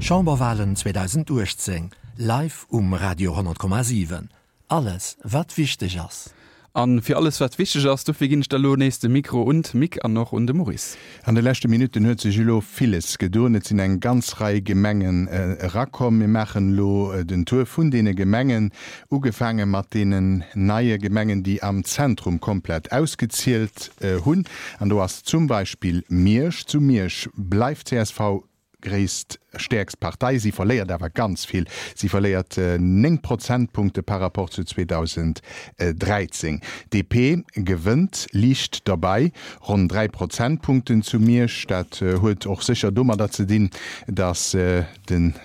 Chamberwalen 2018, live um Radio 10,7. Alles wat wichteg ass. A fir alles wat wichteg ass, dofir ginn ech da lo nees de Mikro un d'Mick an och un de Maurice. An de leschte Minutten huet sech elo villes gedoen. Et sinn eng ganz Rei Gemengen erakomm. Mir maachen elo den Tour vun deene Gemengen, ugefaange mat deenen neie Gemengen, déi am Zentrum komplett ausgezielt hunn. An do ass zum Beispill Miersch. Zu Miersch bleift csv gréisst, stäerkst Partei. Si verléiert awer ganz vill. Si verléiert 9 Prozentpunkte par rapport zu 2013. DP gewënnt liicht derbei, ronn 3 Prozentpunkten zu Miersch. Dat huet och sécher domadder ze dinn, datt de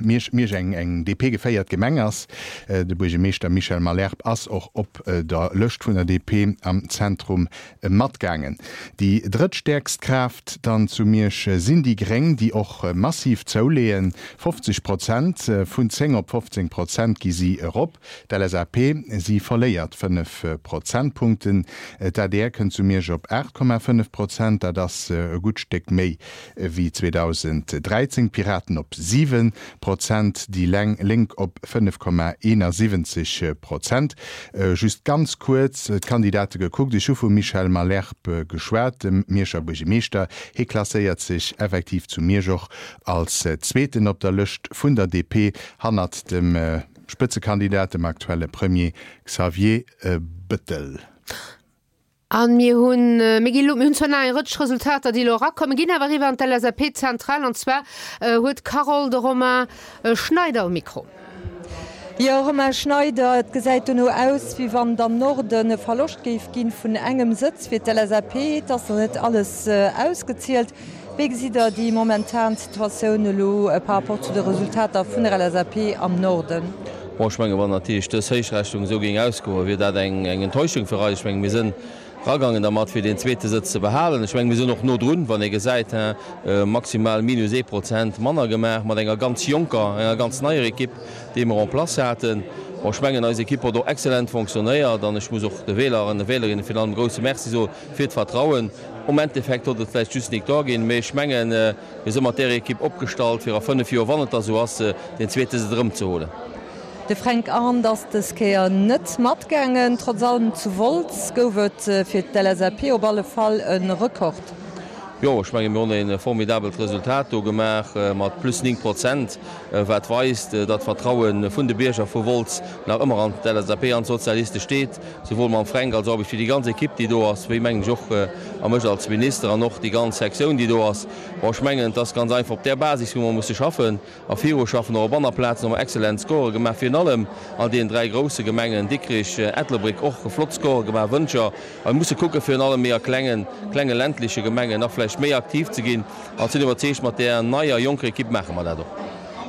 Miersch, Miersch eng eng DP-geféiert Gemeng ass. De Buergermeeschter Michel Malherbe ass och op der Lëscht vun der DP am Zentrum Matgaangen. Déi drëttstäerkst Kraaft dann zu Miersch sinn déi Gréng, déi och massiv zouleeën. 50 Prozent, vun 10 op 15 Prozent gi si erop. D'LSAP, si verléiert 5 Prozentpunkten. D'adr kënnt zu Miersch op 8,5 Prozent, dat ass e gutt Stéck méi wéi 2013, d'Piraten op 7 Prozent, déi Lénk op 5,71 Prozent. Just ganz kuerz d'Kandidate gekuckt, Ech hu vum Michel Malherbe geschwat, dem Mierscher Buergemeeschter. Hie klasséiert sech effektiv zu Miersch och als Zweeten op der Lëscht vun der DP, hannert dem Spëtzekandidat, dem aktuelle Premier Xavier Bettel. A mir hunn, mir ginn elo, mir hunn zwar nach eng Rëtsch Resultater, déi elo erakommen, ginn awer eriwwer an d'LSAP-Zentral. An zwar huet d'Carole de Romain Schneider um Mikro. Jo, Romain Schneider, et gesäit dono aus, wéi wann et am Norden e Verloscht géif ginn vun engem Sëtz fir d'LSAP. Et ass nach net alles ausgezielt. Wéi gesitt Der déi momentan Situatioun elo par rapport zu de Resultater vun der LSAP am Norden? Bon, ech mengen, wann natierlech dës Héichrechnung esou géing ausgoen, wier dat eng Enttäuschung fir eis. Ech mengen, mir sinn eragaangen dermat, fir deen zweete Sëtz ze behalen. Ech mengen, mir sinn och no drun, wann ee gesäit, maximal minus ee Prozent manner gemaach mat enger ganz jonker, enger ganz neier Ekipp, déi mer en place haten. Bon, ech mengen, eis Ekipp huet och excellent fonctionnéiert an ech muss och de Wähler an de Wählerinne virun allem e grouse Merci soe fir d'Vertrauen. Um Endeffekt huet et vläicht just Victoire ginn, mee ech mengen, mir si mat där Ekipp opgestallt, fir a 5 Joer, wann et da sou ass, deen zweete Sëtz erëmzeholen. De Fränk Arndt ass dës Kéier net matgaangen. Trotz allem, zu Wolz gouf et fir d'LSAP op alle Fall e Rekord. Jo, ech menge mir hunn e formidabelt Resultat do gemaach mat plus 9 Prozent, wat weist, datt d'Vertraue vun de Bierger vu Wolz nach ëmmer an d'LSAP an d'Sozialiste steet. Souwuel mam Fränk als och wéi déi ganz Ekipp, déi do ass, wéi mengen ech och a mech als Minister an och déi ganz Sektioun, déi do ass. Bon, ech mengen, et ass ganz einfach op där Basis, wou mer musse schaffen a viruschaffen. Och op aner Plazen hu mer excellent Score gemaach, virun allem an deenen 3 grousse Gemengen, Dikrich, Ettelbréck, och flott Score gemaach, Wëntger. A mir musse kucken, virun allem méi a klengen, klenge ländleche Gemengen nach vläicht méi aktiv ze ginn. An ech sinn iwwerzeegt, mat där neier, jonker Ekipp maache mer dat och.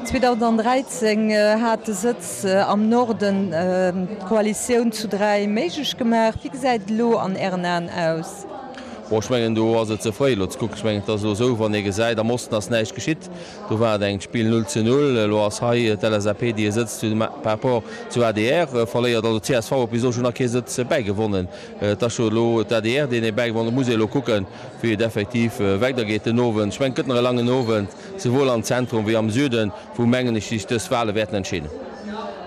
2013 hat de Sëtz am Norden d'Koalitioun zu 3 méiglech gemaach. Wéi gesäit et elo an Ären Aen aus? Bon, ech mengen, do ass et ze fréi elo ze kucken. Ech mengen, et ass elo esou, wann ee gesäit, am Osten ass näischt geschitt, do war et eng Spill 0 zu 0. Elo ass hei d'LSAP, déi e Sëtz zu par rapport zu adr verléiert. Also csv huet bis elo schonn nach kee Sëtz bäigewonnen. Et ass jo elo d'ADR, deen ee bäigewonnen huet. Et muss ee elo kucken, wéi et effektiv weidergeet den Owend. Ech mengen, et gëtt nach e langen Owend. Souwuel am Zentrum wéi am Süden, wou, mengen ech, sech dës Wahle wäerten entscheeden.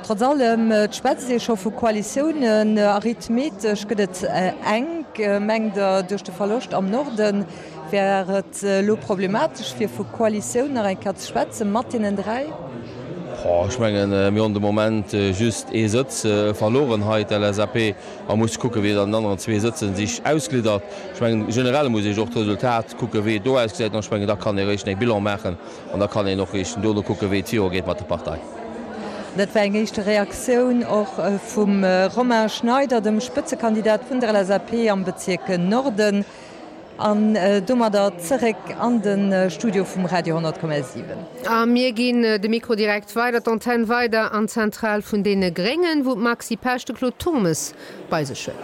Trotz allem, et schwätzt ee scho vu Koalitiounen. Arithmetesch gëtt et enk. Mengt Der, duerch de Verloscht am Norde wär et elo problematesch, fir vu Koalitioun nach eng Kéier ze schwätzen mat deenen 3? Ech mengen, mir hunn de Moment just ee Sëtz verloren hei, d'LSAP. A muss kucken, wéi et an den aneren zwee Sëtzen sich ausgliddert. Ech mengen, generell muss ee sech och d'Resultat kucken, wéi et do ausgesäit. An ech mengen, da kann ee réischt e Bilan maachen an da kann een och réischt dono kucken, wéi et virugeet mat der Partei. Dat war eng éischte Reaktioun och vum Romain Schneider, dem Spëtzekandidat vun der LSAP am Bezierk Norden. An domadder zeréck an de Studio vum Radio 100,7. A mir ginn de Mikro direkt weider, d'Antenn weider an d'Zentral vun deene Gréngen, wou d'Maxi Pesch de Claude Turmes bei sech huet.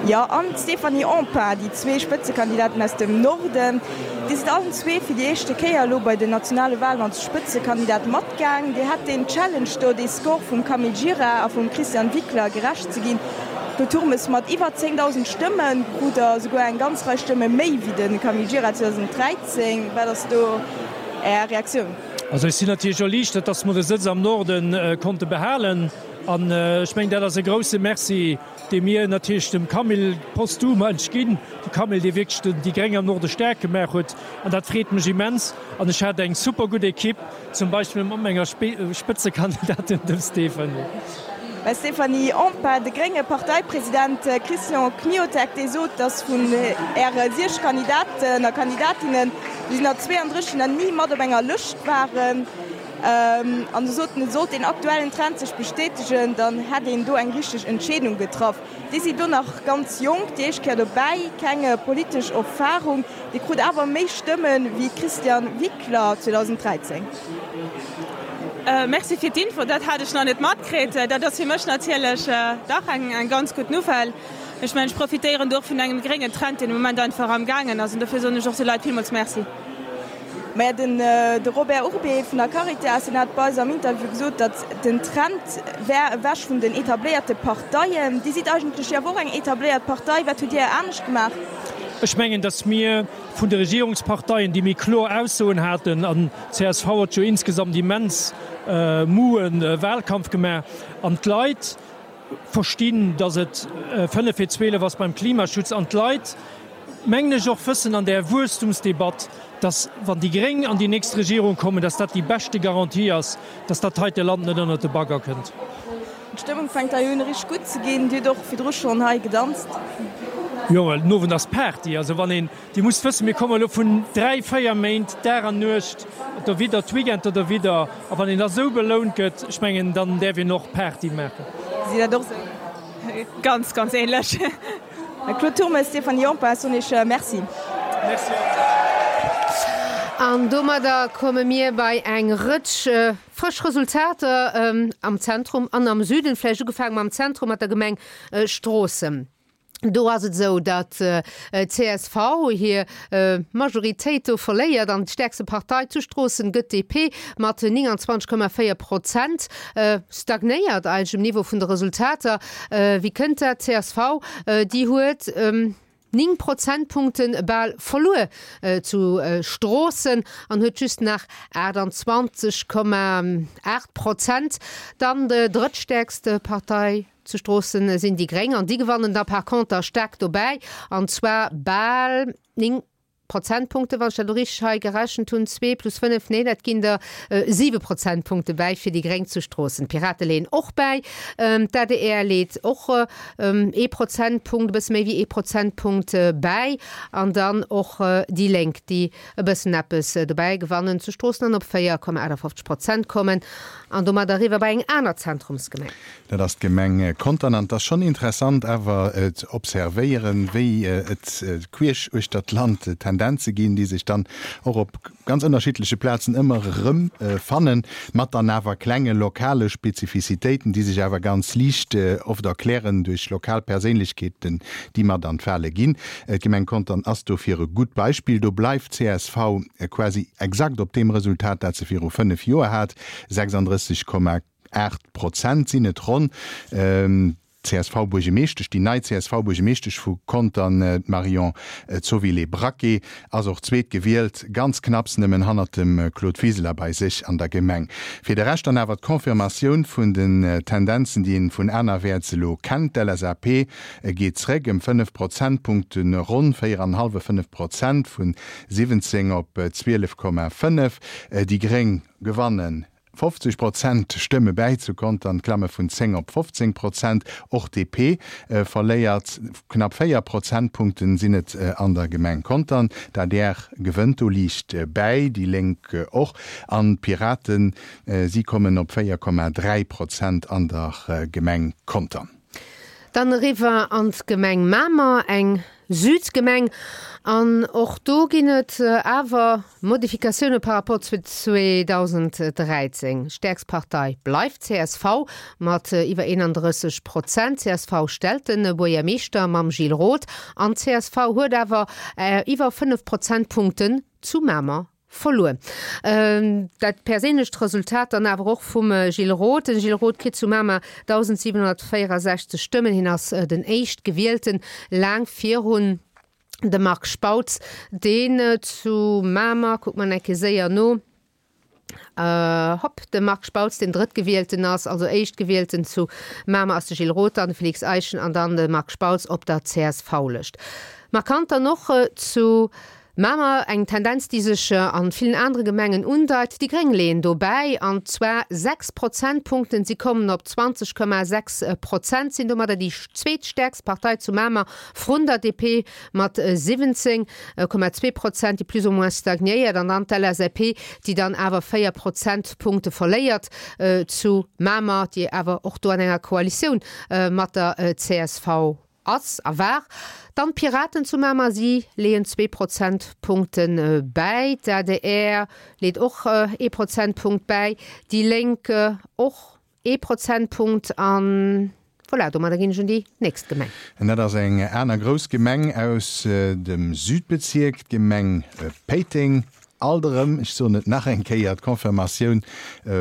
Jo, an d'Stéphanie Empain, déi zwee Spëtzekandidaten aus dem Norden. Dir sidd allen zwee fir déi éischte Kéier elo bei den nationale Walen als Spëtzekandidat matgaang. Dir hat deen Challenge do, dee Score vum Camille Gira a vum Christian Wickler gerecht ze ginn. De Turmes mat iwwer 10.000 Stëmme krut der esouguer eng ganz Rei Stëmme méi wéi de Camille Gira 2013. Wat ass do Är Reaktioun? Also ech sinn natierlech erliichtert, dass mer de Sëtz am Norde konnte behalen. An ech mengen, dat ass e grouse Merci, dee mir natierlech dem Camille posthum eigentlech ginn, de Camille, dee wierklech déi Gréng am Norde staark gemaach huet. An dat freet mech immens. An ech hat eng super gutt Ekipp, zum Beispill mat menger Spëtzekandidatin, dem Stéphanie. Stéphanie Empain, De grénge Parteipresident Christian Kmiotek, dee sot, datt vun Äre siech Kandidaten a Kandidatinnen, déi sinn der 32, déi nach ni mat op enger Lëscht waren. An e sot, sollt deen aktuellen Trend sech bestätegen, dann hätt een do eng richteg Entscheedung getraff. Dir sidd do nach ganz jonk, déi éischt Kéier dobäi, keng politesch Erfarung. Dir krut awer méi Stëmme wéi d'Christiane Wickler 2013. Merci fir d'Info, dat hat ech nach net matkritt. Dat ass fir mech natierlech dach eng ganz gutt Nouvelle. Ech mengen, ech profitéieren do och vun engem gréngen Trend, deen de Moment einfach am gaangen ass. An dofir soen ech och de Leit villmools Merci. Maja, den de Robert Urbé vun der Caritas, deen hat bei eis am Interview gesot, datt den Trend wär ewech vun den etabléierte Parteien. Dir sidd eigentlech jo awer och eng etabléiert Partei. Wat hutt Dir anescht gemaach? Ech mengen, datt mir vun de Regierungsparteien, déi méi kloer Aussoen haten, an csv huet jo insgesamt immens moue Wahlkampf gemaach, an d'Leit verstinn, datt et 5 vir 12 ass beim Klimaschutz, an d'Leit, mengen ech, och wëssen an där Wuesstumsdebatt, datt wann déi Gréng an déi nächst Regierung kommen, datt dat déi beschte Garantie ass, datt dat heite Land net ënnert de Bagger kënnt. D'Stëmmung fänkt hei un richteg gutt ze ginn. Dir hutt och virdru schonn hei gedanzt. Jo, well den Owend ass Party. Also wann een, Dir musst wëssen, mir komme elo vun 3, 4 Méint Dag an Nuecht derwidder, d'Weekender derwidder, a wann een da sou belount gëtt, ech mengen, dann däerf een och Party maachen. Gesitt dat och sou? Ganz, ganz ähnlech. Claude Turmes, Stéphanie Empain, soen Iech Merci. Merci och. An domadder komme mir bei eng Rëtsch frësch Resultater am Zentrum an am Süden. Vläicht ugefaange mam Zentrum, mat der Gemeng Stroossen. Do ass et esou, datt csv hir Majoritéit do verléiert an d'stäerkste Partei zu Stroossen gëtt d'DP mat 29,4 Prozent. Stagnéiert eigentlech um Niveau vun de Resultater. Wéi kënnt dat? Csv, déi huet 9 Prozentpunkte bal verluer zu Stroossen an huet just nach 28,8 Prozent. Dann drëttstäerkste Partei Zu Stroossen sinn déi Gréng an déi gewannen da par conter staark dobäi, an zwar bal 9 Prozentpunkte, wann ech dat elo richteg hei gerechent hunn, zwee plus 5, nee, dat ginn der 7 Prozentpunkte bäi fir déi Gréng zu Stroossen. D'Pirate leeën och bäi, d'ADR leet och ee Prozentpunkt, e bësse méi wéi ee Prozentpunkt bäi an dann och déi Lénk, déi e bëssen eppes dobäi gewannen zu Stroossen an op 4,58 Prozent kommen an domat eriwwer bei eng aner Zentrumsgemeng. Dat ass d'Gemeng Contern. An et ass schonn interessant awer ze observéieren, wéi et queesch uechter d'Land Tendenze ginn, déi sech dann och op ganz ënnerschiddleche Plazen ëmmer erëm fannen, mat dann awer klenge lokale Spezifizitéiten, déi sech awer ganz liicht oft erklären duerch lokal Perséinlechkeeten, déi mat an d'Wale ginn. D'Gemeng Contern ass dofir e gutt Beispill. Do bleift csv quasi exakt op deem Resultat, dat se viru 5 Joer hat, 36, 8 Prozent sinn et ronn. D'CSV-Buergemeeschtesch, déi nei CSV-Buergemeeschtesch vu Contern, d'Marion Zovilé-Braquet, ass och zweetgewielt, ganz knapps nëmmen hannert dem Claude Wiseler bei sech an der Gemeng. Fir de Rescht dann awer d'Confirmatioun vun den Tendenzen, déi een vun anerwäerts elo kennt, D'LSAP geet zréck ëm 5 Prozentpunkten, ronn 4 an hallwe 5 Prozent, vun 17 op 12,5. Déi Gréng gewannen 50 Prozent Stëmme bäi zu Contern, klamme vun 10 op 15 Prozent. Och DP verléiert knapp 4 Prozentpunkten sinn et an der Gemeng Contern. D'adr gewënnt do liicht bäi, déi Lénk och an d'Piraten, si kommen op 4,3 Prozent an der Gemeng Contern. Dann eriwwer an d'Gemeng Mamer, eng Südgemeng. An och do ginn et awer Modifikatioune par rapport zu 2013. Stäerkst Partei bleift csv mat iwwer 31 Prozent. Csv stellt de Buergermeeschter mam Gilles Roth an csv huet awer iwwer 5 Prozentpunkten zu Mamer Verluer. Dat perséinlecht Resultat dann awer och vum Gilles Roth. Den Gilles Roth kritt zu Mamer 1.764 Stëmmen. Hien ass den Éischtgewielten, laang virun dem Marc Spautz, deen zu Mamer, kucke mer eng Kéier séier no. Hopp, de Marc Spautz, deen Drëttgewielten ass, also Éischtgewielten zu Mamer ass de Gilles Roth, dann de Félix Eischen an dann de Marc Spautz op der CSV-Lëscht. Markant dann och zu Mamer eng Tendenz, déi sech a villen anere Gemengen undeit, déi Gréng leeën do bäi, an zwar 6 Prozentpunkten, si kommen op 20,6 Prozent, sinn domadder déi zweetstäerkst Partei zu Mamer vrun der DP mat 17,2 Prozent, déi plus ou moins stagnéiert, an dann d'LSAP, déi dann awer 4 Prozentpunkte verléiert zu Mamer, déi awer och do an enger Koalitioun mat der csv ass a war. Dann d'Piraten zu Mamer, si leeën zwee Prozentpunkte bäi, d'ADR leet och ee Prozentpunkt bäi, déi Lénk och ee Prozentpunkt an voilà, domadder ginn ech un déi nächst Gemeng. An dat ass eng aner grouss Gemeng aus dem Südbezierk, d'Gemeng Péiteng. Alt erëm, ech soen et nach eng Kéier, d'Confirmatioun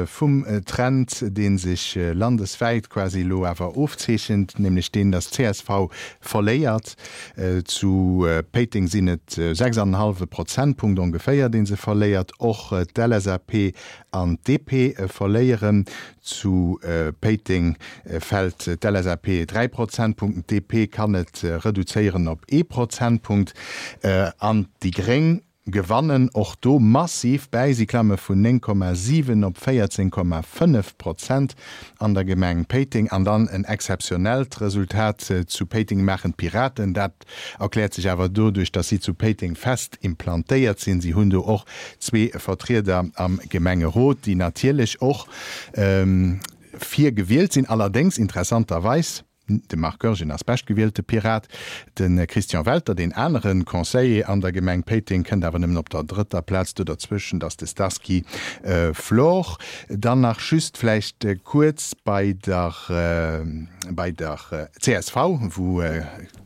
vum Trend, dee sech landeswäit quasi elo awer ofzeechent, nämlech deen, datt csv verléiert. Zu Péiteng sinn et 6 an en hallwe Prozentpunkt ongeféier, dee se verléiert. Och d'LSAP an d'DP verléieren. Zu Péiteng fält d'LSAP 3 Prozentpunkten, d'DP kann et reduzéieren op ee Prozentpunkt an déi Gréng gewannen och do massiv bäi, si klamme vun 9,7 op 14,5 Prozent an der Gemeng Péiteng. An dann en exzeptionellt Resultat zu Péiteng maachen d'Piraten. Dat Erkläert sech awer doduerch, datt si zu Péiteng fest implantéiert sinn. Si hunn do och zwee Vertrieder am Gemengerot, déi natierlech och virgewielt sinn. Allerdéngs, interessanterweis, de Marc Goergen ass beschtgewielte Pirat, de Christian Welter, deen anere Conseiller an der Gemeng Péiteng, kënnt awer nëmmen op der drëtter Plaz. Do derzwëschent ass de Starsky Flor. Dann nach just vläicht kuerz bei der bei der csv, wou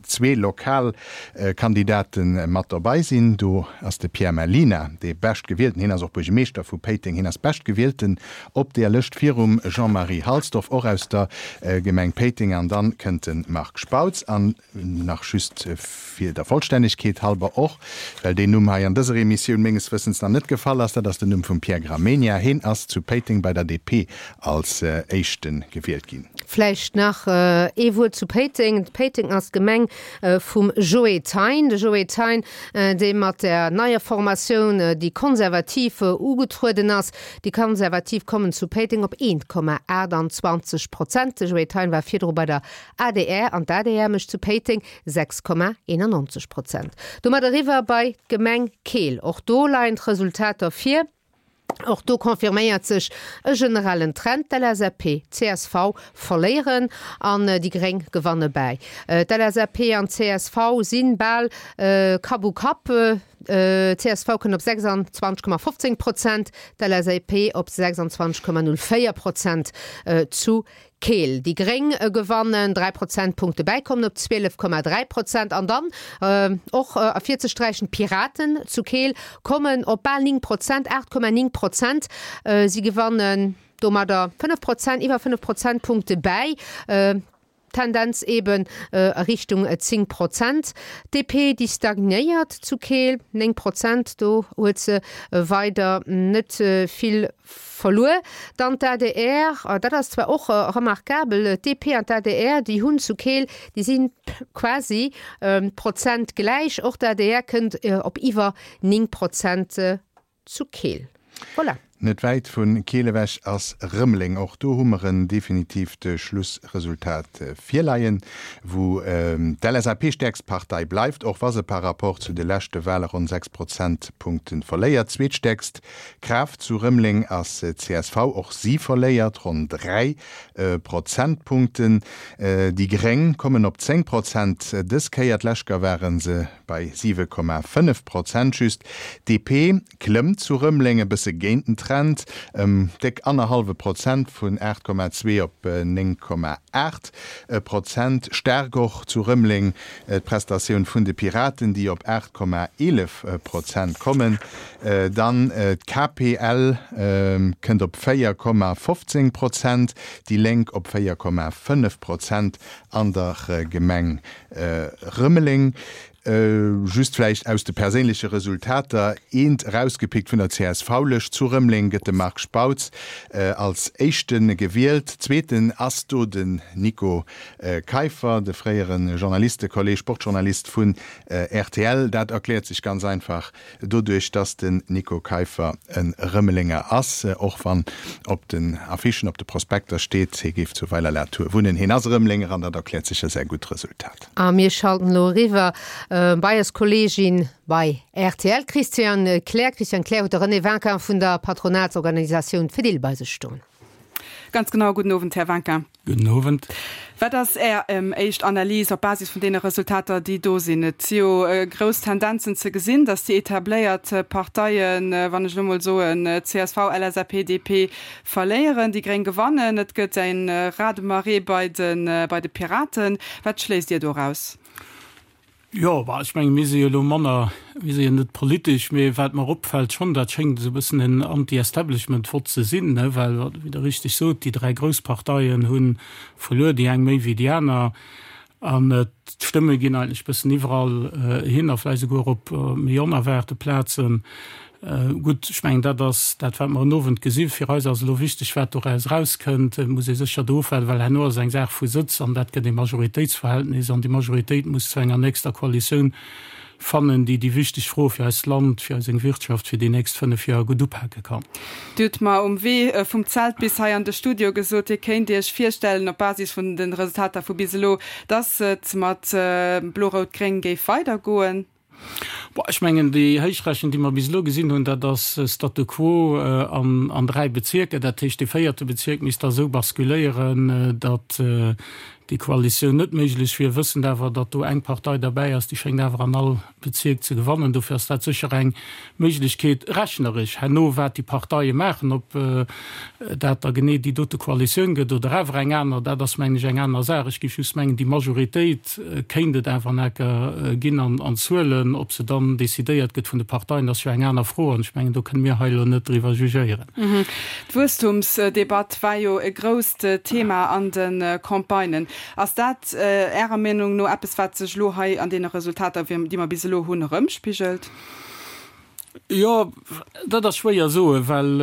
zwee lokal Kandidate mat dobei sinn. Do ass de Pierre Mellina dee Beschtgewielten, hien ass och Buergemeeschter vu Péiteng, hien ass Beschtgewielten op deer Lëscht virum Jean-Marie Halsdorf, och aus der Gemeng Péiteng, an dann kënnt de Marc Spautz. An nach just fir der Vollstännegkeet halber, och well deen Numm hei an dëser Emissioun menges Wëssens nach net gefall ass, dat ass den Numm vum Pierre Gramegna, hien ass zu Péiteng bei der DP als éischte gewielt ginn. Vläicht nach ee Wuert zu Péiteng. Péiteng ass d'Gemeng vum Joe Thein. De Joe Thein, dee mat der neier Formatioun déi Konservativ ugetrueden ass. Déi Konservativ kommen zu Péiteng op 1,28 Prozent. De Joe Thein war virdru bei der adr an d'ADR mécht zu Péiteng 6,91 Prozent. Domat eriwwer bei d'Gemeng Keel. Och do leien d'Resultater vir. Och do confirméiert sech e generellen Trend, D'LSAP, csv verléieren an déi Gréng gewanne bäi. D'LSAP an csv si bal Kapp u Kapp, csv kënnt op 26,15 Prozent, d'LSAP op 26,04 Prozent zu Keel. Déi Gréng gewannen 3 Prozentpunkte bäi, kommen op 12,3 Prozent. An dann och ervirzesträichen, d'Piraten zu Keel kommen op bal 9 Prozent, 8,9 Prozent. Si gewannen domadder 5 Prozent, iwwer 5 Prozentpunkte bäi. Tendenz eben a Richtung 10 Prozent. D'DP, déi stagnéiert zu Keel, 9 Prozent, do huet se weider net vill Verluer. Dann d'ADR, dat ass zwar och remarkabel, d'DP an d'ADR, déi hunn zu Keel, déi si quasi Prozent gläich. Och d'ADR kënnt op iwwer 9 Prozent zu Keel. Voilà. Net wäit vu Keel ewech ass Rëmeleng. Och do hu mer en definitiivt Schlussresultat virleien, wou d'LSAP stäerkst Partei bleift, och wa se par rapport zu de leschte Wale ronn 6 Prozentpunkte verléiert. Zweetstäerkst Kraaft zu Rëmeleng ass csv, och si verléiert ronn 3 Prozentpunkten. Déi Gréng kommen op 10 Prozent dës Kéier, d'lescht Kéier ware se bei 7,5 Prozent just. DP klëmmt zu Rëmeleng e bësse géint den Trend, ëm déck annerhallwe Prozent, vun 8,2 op 9,8 Prozent. Staark och zu Rëmeleng d'Prestatioun vun de Piraten, déi op 8,11 Prozent kommen. Dann d'KPL kënnt op 4,15 Prozent, déi Lénk op 4,5 Prozent an der Gemeng Rëmeleng. Just vläicht aus de perséinleche Resultater eent erausgepickt, Vun der CSV-Lëscht zu Rëmeleng gëtt de Marc Spautz als Éischte gewielt. Zweeten ass do den Nico Keiffer, de fréiere Journalistekolleg, Sportjournalist vun rtl. Dat erkläert sech ganz einfach Doduerch dass den Nico Keiffer e Rëmelenger ass, och wann op den Affichen, op de Prospekter steet, hie géif zu Weiler-la-Tour wunnen, hien ass e Rëmelenger an dat erkläert sécher säi gutt Resultat. A mir schalten elo eriwwer bei eis Kolleegin bei rtl, Christiane Kleer. Christiane Kleer huet de René Vinquin vun der Patronatsorganisatioun Fedil bei sech stoen. Ganz genau. Gudden Owend, Här Vinquin. Gudden Owend. Wat ass Är éischt Analys op Basis vun deene Resultater, déi do sinn? Et si jo grouss Tendenzen ze gesinn, datt déi etabléiert Parteien, wann ech elo mol soen csv, LSAP, DP, verléieren, déi Gréng gewannen. Et gëtt e Raz-de-marée bei de Piraten. Wat schléisst Dir doraus? Jo, bah, ech menge mir si jo elo manner, mir si jo net politesch, mee wat mer opfält schonn, dat schéngt esou e bëssen en Anti-Establishment-Vott ze sinn, ne, well, wéi Der richteg sot, déi 3 grouss Parteien hu verluer, déi eng méi wéi déi aner, an d'Stëmme ginn eigentlech e bëssen iwwerall hin a vläicht esouguer op méi onerwaarte Plazen. Gutt, ech mengen, dat ass dat, wat mer en Owend gesinn. Fir eis ass elo wichteg, wat doraus erauskënnt. Et muss ee sécher do ofwaarden, well herno ass et eng Saach vu Sëtz an dat gëtt ee Majoritéitsverhältnis an déi Majoritéit muss zu enger nächster Koalitioun fannen, déi déi wichteg Froe fir eist Land, fir eis Wirtschaft fir déi nächst 5 Joer gutt upake kann. Dir hutt mer um Wee vum Zelt bis hei an de Studio gesot, Dir kéint Iech virstellen, op Basis vun de Resultater vu bis elo, dass et mat Blo-Rout-Gréng géif weidergoen. Bon, ech mengen, déi Héichrechnung, déi mer bis elo gesinn hunn, dat ass Statu quo an 3 Bezierker. Dat heescht, dee véierte Bezierk misst da esou basculéieren, datt déi Koalitioun net méiglech wier, wëssend awer, datt do eng Partei derbäi ass, déi schéngt awer an all Bezierk ze gewannen. Dofir ass dat sécher eng Méiglechkeet rechneresch. Herno, wat déi Parteie maachen, ob dat da genee déi dote Koalitioun gëtt oder awer eng aner, dat ass, mengen ech, eng aner Saach. Ech géif just mengen, déi Majoritéit kéint et awer enker ginn an Zuelen. Ob se dann decidéiert gëtt vun de Parteien, ass jo eng aner Fro an ech mengen, do kënne mir hei elo net driwwer jugéieren. D'Wuesstumsdebatt war jo e grousst Thema an de Campagnen. Ass dat Ärer Meenung no eppes, wat sech elo hei an deene Resultater, déi mer bis elo hunn, erëmspigelt? Jo, dat ass schwéier soen, well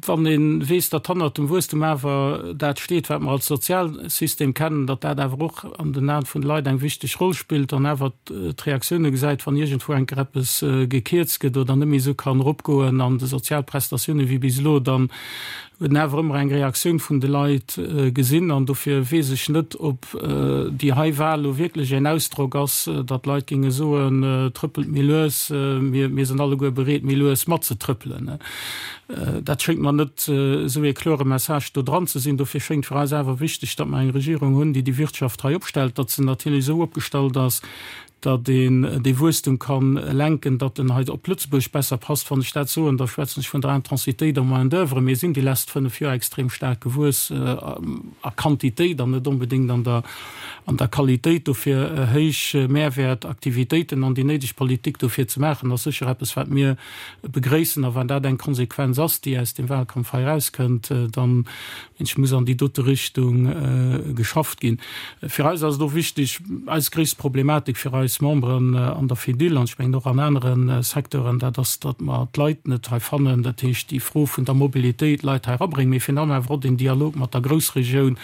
wann ee weess, datt hannert dem Wuesstum awer dat steet, wat mer als Sozialsystem kennen, datt dat awer och an den Aen vun de Leit eng wichteg Roll spillt an awer d'Reaktioune gesäit, wann iergendwou eng Kéier eppes gekierzt gëtt oder net méi esou kann eropgoen an de Sozialprestatioune wéi bis elo, dann huet en awer ëmmer eng Reaktioun vun de Leit gesinn. An dofir weess ech net, ob déi hei Wahl elo wierklech een Ausdrock ass, datt d'Leit géinge soen, Trëppelt méi lues, mir sinn alleguer bereet, méi lues matzetrëppelen. Dat schéngt mer net esou ee klore Message do dran ze sinn. Dofir schéngt fir eis awer wichteg, datt mer eng Regierung hunn, déi déi Wirtschaft hei opstellt, datt se natierlech esou opgestallt ass, datt een dee Wuesstum ka lenken, datt en hei op Lëtzebuerg besser passt. Wann ech dat soen, da schwätzen ech vun der Intensitéit en Main d'oeuvre. Mir sinn déi lesst 5 Joer extrem staark gewuess a Quantitéit an net onbedéngt an der an der Qualitéit. Dofir héich Mehrwäert-Aktivitéiten an déi néideg Politik dofir ze maachen, ass sécher eppes, wat mir begréissen. A wann dat eng Konsequenz ass, déi aus deem Wahlkampf hei erauskënnt, dann Ech muss an déi dote Richtung geschafft ginn. Fir eis ass et och wichteg, eis gréisst Problematik fir eis Memberen an der Fedil, an ech mengen och an anere Secteuren, dat ass, datt mer d'Leit net hei fannen. Dat heescht, déi Fro vun der Mobilitéit, Leit hei erabréngen, mee virun allem awer och den Dialog mat der Groussregioun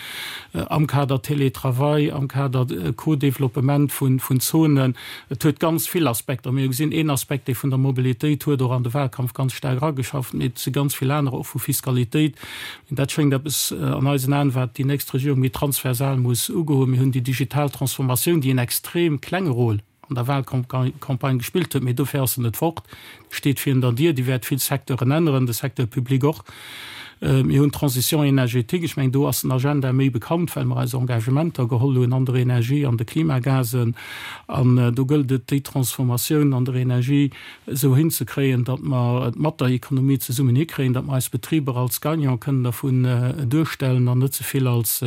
am Kader Télétravail, am Kader Co-Développement vun Zonen. Et huet ganz vill Aspekter. Mir hu gesinn, een Aspekt, dee vun der Mobilitéit huet och an de Wahlkampf ganz staark erageschafft, mee et si ganz vill anerer, och vu Fiskalitéit, Dat schéngt eppes an eisen Aen, wat déi nächst Regierung méi transversal muss ugoen. Mir hunn déi digital Transformatioun, déi en extrem klenge Rôle an der Wahlcampagne gespillt huet, mee dofir ass se net fort, déi steet virun der Dier, déi wäert vill Secteuren änneren, de Secteur public och. Mir hunn d'Transition énergétique, ech mengen, do ass den Agenda méi bekannt, well mer eis Engagementer geholl hunn an der Energie, an de Klimagasen. An do gëllt et, déi Transformatioun an der Energie esou hinzekréien, datt mer et mat der Ekonomie zesummen hikréien, datt mer eis Betriber als Gagnant kënnen dervun duerstellen an net ze vill als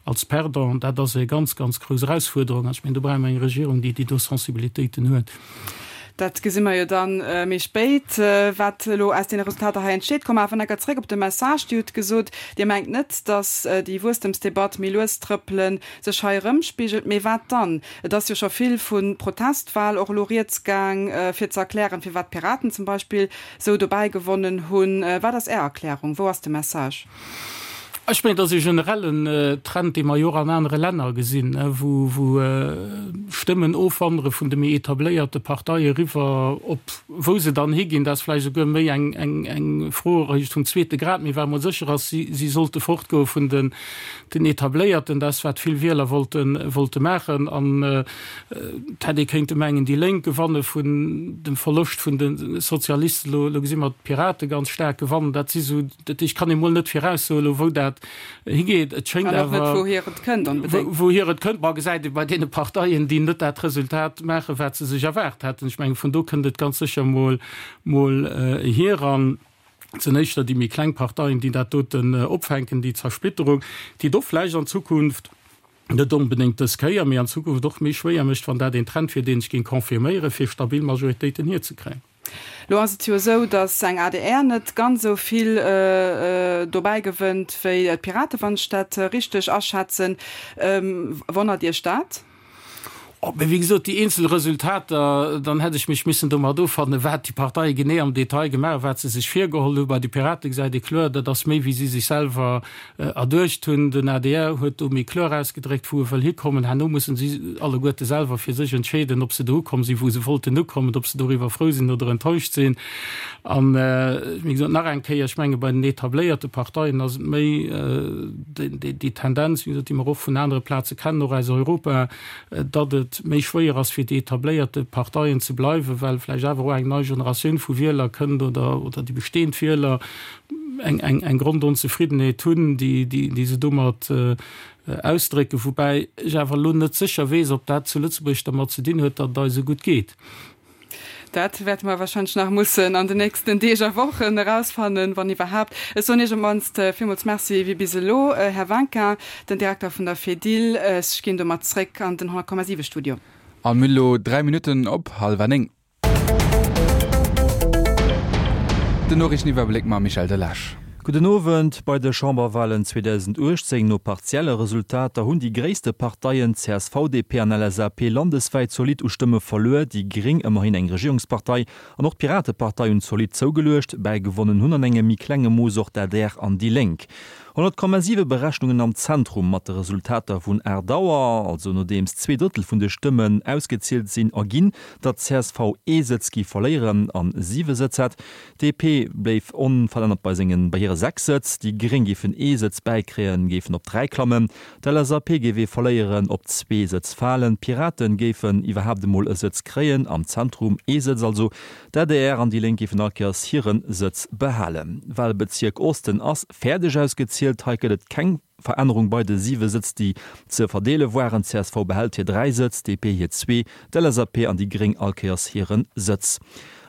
als Perdant. Dat ass e ganz, ganz grouss Erausfuerderung. An ech mengen, do brauche mer eng Regierung, déi déi do Sensibilitéiten huet. Dat gesi mer jo dann méi spéit, wat elo aus deene Resultater hei entsteet. Komme awer enker zréck op de Message. Dir hutt gesot, Dir mengt net, datt déi Wuesstemsdebatt méi lues trëppelen sech hei erëmspigelt. Mee wat dann? Et ass jo scho vill vu Protestwal och elo rieds gaang, fir ze erklären, firwat d'Piraten zum Beispill sou dobäi gewonnen hunn. Wat ass Är Erklärung? Wou ass de Message? Ech mengen, et ass e generellen Trend, dee mer jo och an anere Länner gesinn, wou Stëmmen ofwandere vun de méi etabléierte Parteie eriwwer op wou se dann higinn. Dat ass vläicht esouguer méi eng Fro eréischt vum zweete Grad. Mee wat emol sécher ass, si sollte fortgoe vun den Etabléierten. Dat ass, wat vill Wieler wollte maachen. An et hätt ee kéinte mengen, déi Lénk gewanne vun dem Verloscht vun de Sozialisten. Elo gesi mer d'Pirate ganz staark gewannen. Dat si sou Dat heescht, kann ee mol net viraussoen elo, wou dat higeet. Et schéngt An och net, awer, wouhier et kënnt onbedéngt. Wouhier et kënnt, ma gesäit ee bei deene Parteien, déi net dat Resultat maachen, wat se sech erwaart haten. Ech mengen, vun do kënnt et ganz sécher mol, mol hier. An et sinn éischter déi méi kleng Parteien, déi dat doten opfänken, déi Zersplitterung, déi et och vläicht an Zukunft, net onbedéngt dës Kéier, mee an Zukunft och méi schwéier mécht, wann dat een Trend wier, deen ech géing confirméieren, fir stabil Majoritéiten hierzekréien. Lo ass et jo esou, datt eng adr net ganz esou vill dobäi gewënnt wéi d'Piraten, wann ech dat richteg aschätzen. Wonnert Iech dat? Oh, mee wéi gesot, déi eenzel Resultater, dann hätt ech mech missen domat offannen, wat déi Parteie genee am Detail gemaach hunn, wat se sech virgeholl hunn. Bei de Pirate gesäit ee kloer, dat ass méi wéi si sech selwer erduecht hunn. Den adr huet do méi kloer ausgedréckt, wou e wëll hikommen. Herno mussen si alleguerte selwer fir sech entscheeden, ob se do ukomm sinn, wou se wollten ukommen, ob se doriwwer frou sinn oder enttäuscht sinn. An, wéi gesot, nach eng Kéier, ech menge bei den etabléierte Parteien ass et méi déi Tendenz, wéi gesot, déi mer och vun anere Plaze kennen, och aus Europa, datt et méi schwéier ass, fir déi etabléierte Parteien ze bleiwen, well vläicht awer och eng nei Generatioun vu Wieler kënnt oder déi bestehend Wieler, eng, eng, eng Grondonzefriddenheet hunn, déi, déi, déi se domat ausdrécken, woubäi ech awer elo net sécher weess, ob dat zu Lëtzebuerg dermat ze dinn huet, datt et eis esou gutt geet. Dat wäerte mer wahrscheinlech nach mussen an den nächsten Deeg a Wochen erausfannen, wann iwwerhaapt. Ech soen Iech op d'mannst villmools Merci wéi bis elo, Här Vinquin, den Direkter vun der Fedil. Ech ginn domat zréck an den 100,7 Studio. A mir elo 3 Minutten op hallwer 9. Den Noriichteniwwerbléck mam Michel Delage. Gudden Owend. Bei de Chamberwalen 2018 no partielle Resultater hunn déi gréisste Parteien csv, DP an LSAP landeswäit zolidd u Stëmme verluer. Déi Gréng, ëmmerhin eng Regierungspartei, an och d'Piratepartei hunn zolidd zougeluecht. Bäigewonnen hunn an engem méi klenge Mooss och d'ADR an déi Lénk. 100,7 Berechnungen am Zentrum mat de Resultater vun 8 Auer, also nodeems zweedrëttel vun de Stëmmen ausgezielt sinn, erginn, datt csv ee Sëtz gi verléieren an siwe Sëtz hätt. DP bléif onverännert bei sengen bei hire 6 Sëtz, déi Gréng géifen ee Sëtz bäikréien, géifen op 3 klammen, d'LSAP géif ee verléieren, op zwee Sëtz falen, d'Piraten géifen iwwerhaapt emol e Sëtz kréien, am Zentrum ee Sëtz also, d'ADR an déi Lénk géifen all Kéiers hire Sëtz behalen. Walbezierk Osten ass fäerdeg ausgezielt, hei gëtt et keng Verännerung bei de siwe Sëtz, déi ze verdeele waren, csv behält hir 3 Sëtz, DP hir zwee, d'LSAP an déi Gréng all Kéiers hire Sëtz.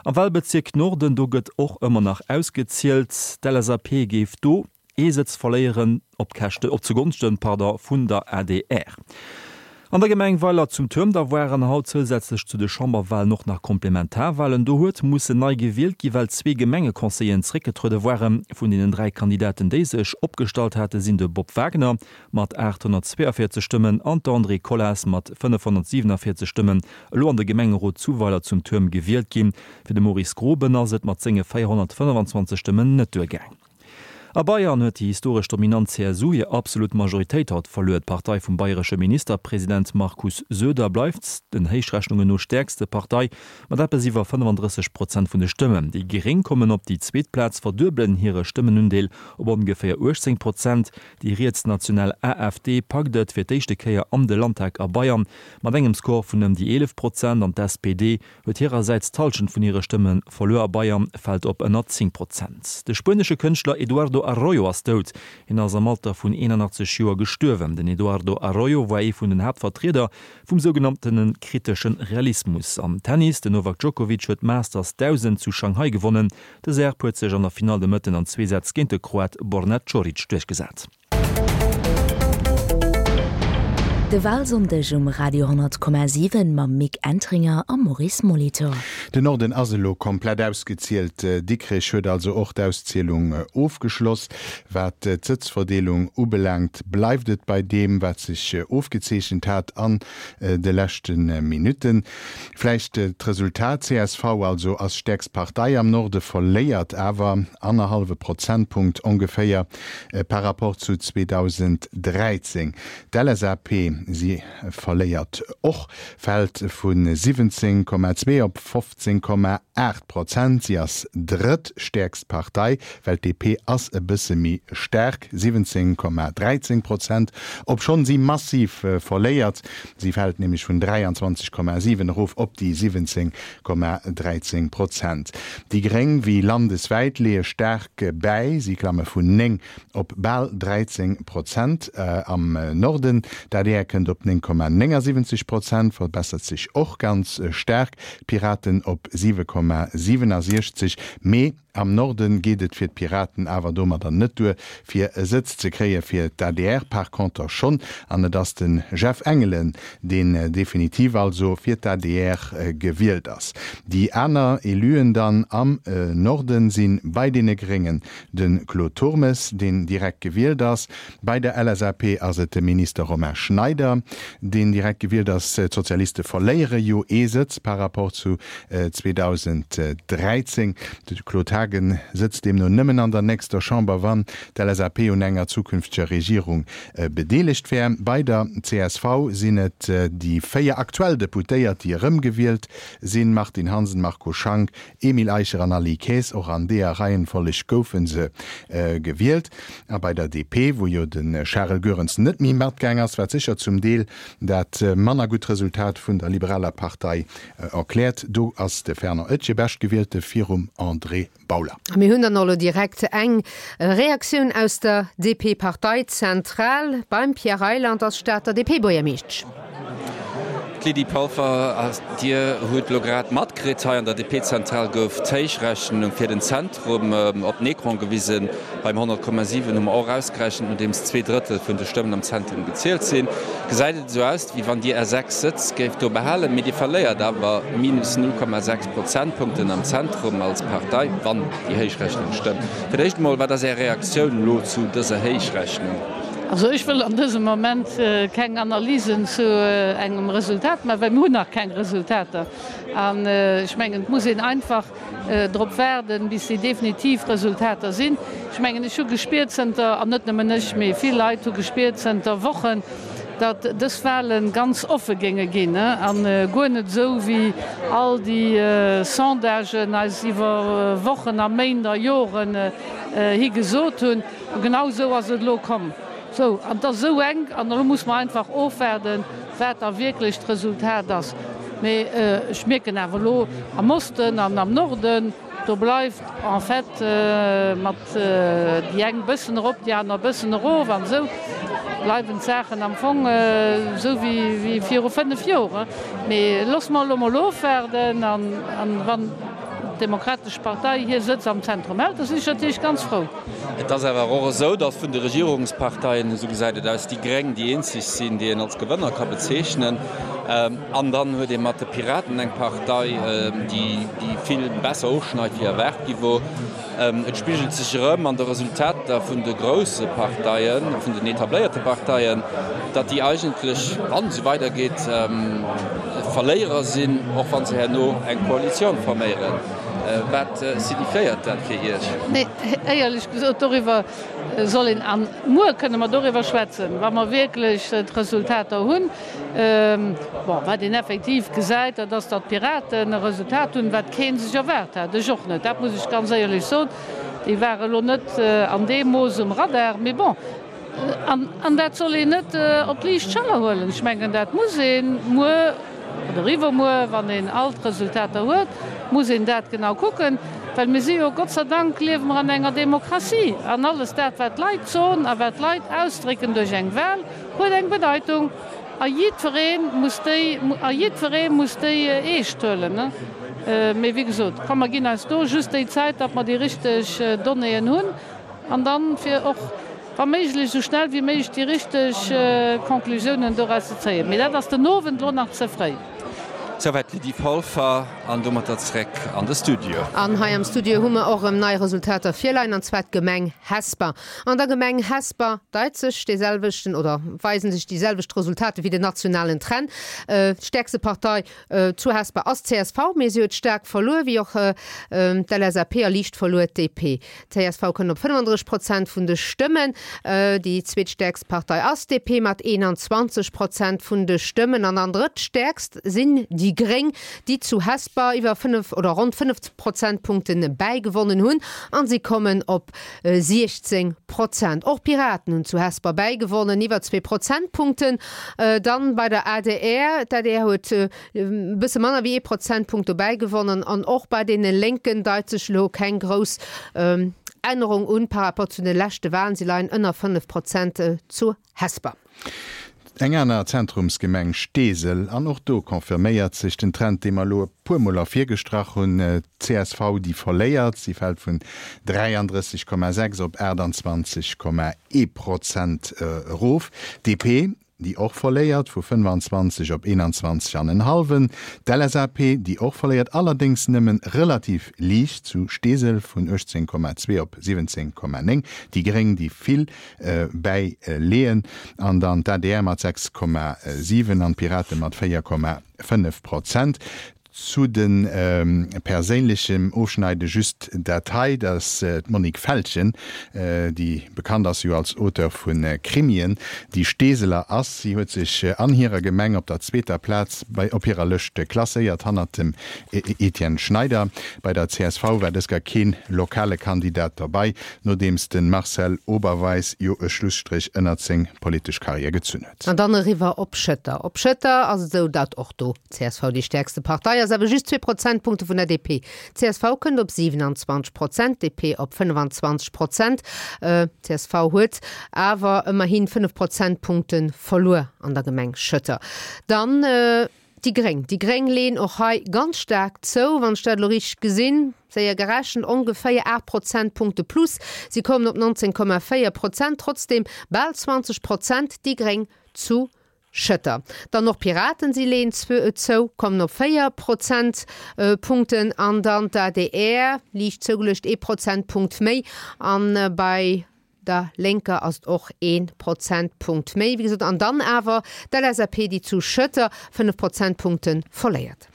Am Walbezierk Norden, do gëtt och ëmmer nach ausgezielt, d'LSAP géif do ee Sëtz verléieren, op Käschte, op zugonschten, pardon, vun der adr. An der Gemeng Weiler zum Tuerm da waren haut zousätzlech zu de Chamberwalen och nach Komplementarwalen. Do huet mussen nei gewielt gi well zwee Gemengeconseilleren zréckgetruede waren. Vun deenen 3 Kandidaten déi sech opgestallt hate sinn de Bob Wagner mat 842 Stëmmen an d'Andrée Colas mat 547 Stëmmen elo an de Gemengerot zu Weiler zum Tuerm gewielt ginn. Fir de Maurice Groben ass et mat senge 425 Stëmmen net duergaang. A Bayern huet déi historesch dominant CSU hir absolut Majoritéit haut verluer. D'Partei vum bayresche Ministerpresident Markus Söder bleift den Héichrechnungen no stäerkste Partei mat eppes iwwer 35 Prozent vun de Stëmmen. Déi Gréng kommen op déi zweet Plaz, verduebelen hire Stëmmenundeel op ongeféier 18 Prozent. Déi rietsnational AfD packt et fir d'éischte Kéier an de Landtag a Bayern mat engem Score vun ëm déi 11 Prozent an d'SPD huet hirersäits d'Hallschent vun hire Stëmme verluer a Bayern fält op ënner 10 Prozent. De spuenesche Kënschtler Eduardo Arroyo ass dout. Hien ass am Alter vun 81 Joer gestuerwen. Den Eduardo Arroyo war ee vun den Haaptvertrieder vum sougenanntene kritesche Realismus. Am Tennis, Den Novak Djokovic huet d'Masters 1000 zu Shanghai gewonnen. De Serb huet sech an der Finall de Mëtten an zwee Sätz géint de Kroat Borna Coric duerchgesat. De Walsonndeg um Radio 10,7 mam Mick Entringer a Maurice Molitor. Den Norden ass elo komplett ausgezielt. Dikrech huet also och d'Auszielung ofgeschloss. Wat d'Sëtzverdeelung ubelaangt, bleift et bei deem, wat sech ofgezeechent hat an de leschte Minutten. Vläicht d'Resultat, csv also ass stäerkst Partei am Norde, verléiert awer annerhallwe Prozentpunkt ongeféier par rapport zu 2013. D'LSAP, si verléiert och, fält vu 17,2 op 15,8 Prozent. Si ass drëttstäerkst Partei, well d'DP ass e bësse méi staark, 17,13 Prozent, obschonn si massiv verléiert. Si fält nämlech vun 23,7 erof op déi 17,13 Prozent. Déi Gréng, wéi landeswäit, leeë staark bäi, si klamme vun 9 op bal 13 Prozent am Norden. D'adr kënnt op 9,79 Prozent, verbessert sech och ganz staark, d'Piraten op 7,67. Mee am Norde geet et fir d'Piraten awer domadder net duer, fir e Sëtz ze kréien, fir d'ADR par conter schonn. An et ass de Jeff Engelen, deen definitiv also fir d'ADR gewielt ass. Déi aner Eluen dann am Norden si bei deene Gréngen De Claude Turmes, deen direkt gewielt ass. Bei der LSAP ass et de Minister Romain Schneider, deen direkt gewielt ass. D'Sozialiste verléiere jo ee Sëtz par rapport zu 2013. De Claude Haagen sëtzt deemno nëmmen an der nächster Chamber, wann d'LSAP un enger zukünfteger Regierung bedeelegt wär. Bei der csv sinn et déi 4 aktuell Deputéiert, déi erëmgewielt sinn, Martine Hansen, Marco Schank, Emile Eicher an Aly Kaes, och an deeër Reihenfolleg goufe se gewielt. A bei der DP, wou jo de Charel Goerens net méi matgaang ass, wat sécher zum Deel dat manner gutt Resultat vun der liberaler Partei erkläert, do ass de Fernand Etgen Beschtgewielte virum André Bauler. A mir hunn dann och elo direkt eng Reaktioun aus der DP-Parteizentral. Beim Pierre Reyland ass Stater DP-Buergermeeschtsch. D'Lydie Polfer, Dir hutt elo grad matkritt, hei an der DP-Zentral gouf d'Héichrechnung fir den Zentrum op den Ecran gewisen. Beim 100,7 hu mer och ausgerechent, nodeems 2/3 vun de Stëmmen am Zentrum gezielt sinn, gesäit et esou aus, wéi wann Dir Är 6 Sëtz géift do behalen, mee Dir verléiert awer minus 0,6 Prozentpunkten am Zentrum als Partei, wann déi Héichrechnung stëmmt. Fir d'éischt emol, wat ass Är Reaktioun elo zu dëser Héichrechnung? Also ech wëll an dësem Moment keng Analysen zu engem Resultat maachen, well mir hunn nach keng Resultater. An ech mengen, et muss een einfach drop waarden, bis déi definitiv Resultater sinn. Ech mengen, ech hu gespiert zënter, an net nëmmen ech, mee vill Leit hu gespiert zënter Wochen, datt dës Wahle ganz offe géinge ginn a guer net esou, wéi all déi Sondagen eis iwwer Wochen a Méint a Joren hi gesot hunn. A genau esou ass et elo komm. Sou, an et ass esou enk, an elo muss mer einfach ofwaarden, wat da wierklech d'Resultat ass. Mee ech mierken awer elo am Osten an am Norden, do bleift en fait mat déi eng bëssen erop, déi aner bëssen erof an esou bleiwen d'Saachen am Fong esou wéi viru 5 Joer. Mee loosse mer elo mol ofwaarden an wann d'Demokratesch Partei hir Sëtz am Zentrum hält, da sinn ech natierlech ganz frou. Et ass awer och esou, datt vun de Regierungsparteien, esou gesäit et aus, déi Gréng déi eenzeg sinn, déi een als Gewënner ka bezeechnen. An dann huet ee mat de Piraten eng Partei, déi vill besser ofschneit, wéi erwaart gi wor. Et spigelt sech erëm an de Resultater vun de grousse Parteien, vun den etabléierte Parteien, datt déi eigentlech, wann et esou weidergeet, Verléierer sinn, och wa se herno eng Koalitioun forméieren. Wat signifiéiert dat fir Iech? Nee, éierlech gesot, doriwwer soll een, an muer kënne mer doriwwer schwätzen, wa mer wierklech d'Resultater hunn. Bon, wat een effektiv gesäit, dat ass, datt d'Piraten e Resultat hunn, wat kee sech erwaart hat, ech och net, dat muss ech ganz éierlech soen. Déi ware lo net an deem Mooss um Radar, mee bon. An dat soll een net op d'liicht Schëller huelen. Ech mengen, dat muss ee muer oder iwwermuer, wann een all d'Resultater huet, muss een dat genau kucken, well mir si jo, Gott sei Dank liewe mer an enger Demokratie, an alles dat, wat d'Leit soen a wat d'Leit ausdrécken duerch eng Wahl, huet eng Bedeitung a jiddweree muss déi, a jiddweree muss déi eescht huelen. Mee wéi gesot, komm mer ginn eis do just déi Zäit, datt mer déi richteg Donnéeën hunn an dann fir och. Wa méiglech esou schnell wéi méiglech déi richteg Conclusiounen doraus ze zéien. Mee dat ass den Owend elo nach ze fréi. Souwäit d'Lydie Polfer an domatter zréck an de Studio. An hei am Studio hu mer och erëm nei Resultater virleien, an zwar d'Gemeng Hesper. An der Gemeng Hesper deit sech dee selwechten oder weisen sech déi selwecht Resultater wéi den nationalen Trend. D'stäerkste Partei zu Hesper ass d'CSV, mee si huet staark verluer, wéi och d'LSAP a liicht verluer d'DP. D'CSV kënnt op 35 Prozent vun de Stëmmen. Déi zweetstäerkst Partei ass d'DP mat 21 Prozent vun de Stëmmen. An dann drëttstäerkst sinn déi Gréng, déi zu Hesper iwwer 5 oder ronn 5 Prozentpunkte bäigewonnen hunn a si kommen op 16 Prozent. Och d'Piraten hunn zu Hesper bäigewonnen, iwwer zwee Prozentpunkten. Dann bei der adr, d'adr huet E bësse manner wéi ee Prozentpunkt dobäi gewonnen. An och bei deene Lénken deit sech elo keng grouss Ännerung un par rapport zu de leschte Walen. Si leien ënner 5 Prozent zu Hesper. Eng aner Zentrumsgemeng, Steesel, an och do confirméiert sech den Trend, dee mer elo e puermol ervirgestrach hunn, D'CSV, déi verléiert, si fält vun 33,6 op 28,1 Prozent erof. DP, déi och verléiert, vu 25 op 21 an en hallwen, d'LSAP, déi och verléiert, allerdéngs nëmmen relativ liicht zu Steesel, vun 18,2 op 17,9, déi Gréng, déi vill bäileeën, an dann d'ADR mat 6,7 an d'Pirate mat 4,5 Prozent. Zu de perséinlechem Ofschneide just dat hei, dass d'Monique Feltgen, déi bekannt ass jo als Auteur vu Krimien, déi Steeseler ass. Si huet sech an hirer Gemeng op der zweeter Plaz bei op hirer Lëscht klasséiert, hannert dem Etienne Schneider. Bei der csv war dës Kéier keen lokale Kandidat derbei, nodeems de Marcel Oberweis jo e Schlusstréch ënnert seng politesch Karriär gezunn huet. An dann eriwwer op Schëtter. Op Schëtter ass et esou, datt och do Csv déi stäerkste Partei ass, awer just zwee Prozentpunkte vun der DP. Csv kënnt op 27 Prozent, DP op 25 Prozent. Csv huet awer ëmmerhi 5 Prozentpunkte verluer an der Gemeng Schëtter. Dann déi Gréng. Déi Gréng leeën och hei ganz staark zou, wann ech dat elo richteg gesinn, séier gerechent, ongeféier 8 Prozentpunkte plus. Si kommen op 19,4 Prozent, trotzdeem bal 20 Prozent déi Gréng zu Schëtter. Dann och Piraten, si leeën zou, kommen op 4 Prozentpunkten. An dann d'ADR, liicht zougeluecht, ee Prozentpunkt méi. An bei der Lénker ass et och ee Prozentpunkt méi, wéi gesot. An dann awer d'LSAP, déi zu Schëtter 5 Prozentpunkte verléiert.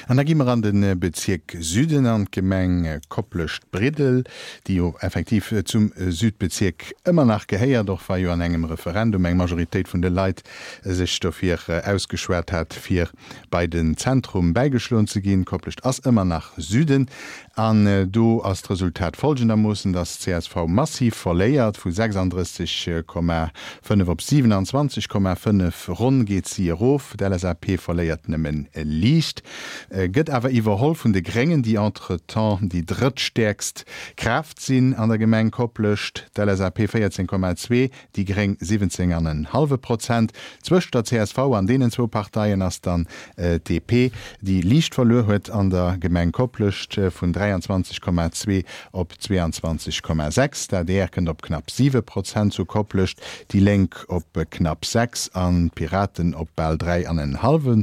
An da gi mer an de Bezierk Süden, an d'Gemeng Koplescht-Briddel, déi jo effektiv zum Südbezierk ëmmer nach gehéiert, och wa jo an engem Referendum eng Majoritéit vun de Leit sech dofir ausgeschwat hat, fir bei den Zentrum bäigeschloen ze ginn. Koplescht ass ëmmer nach Süden. An do ass d'Resultat folgendermoossen, dass csv massiv verléiert, vu 36,5 op 27,5 ronn geet si erof. D'LSAP verléiert nëmme liicht, gëtt awer iwwerholl vun de Gréngen, déi entretemps déi drëttstäerkst Kraaft sinn an der Gemeng Koplescht, d'LSAP 14,2, déi gréng 17 an en hallwe Prozent. Zwëscht der csv an deenen zwou Parteien ass dann d'DP, déi liicht verluer huet an der Gemeng Koplescht vun 23,2 op 22,6. D'adr kënnt op knapp 7 Prozent zu Koplescht, déi Lénk op knapp 6 an d'Piraten op bal 3 an en hallwe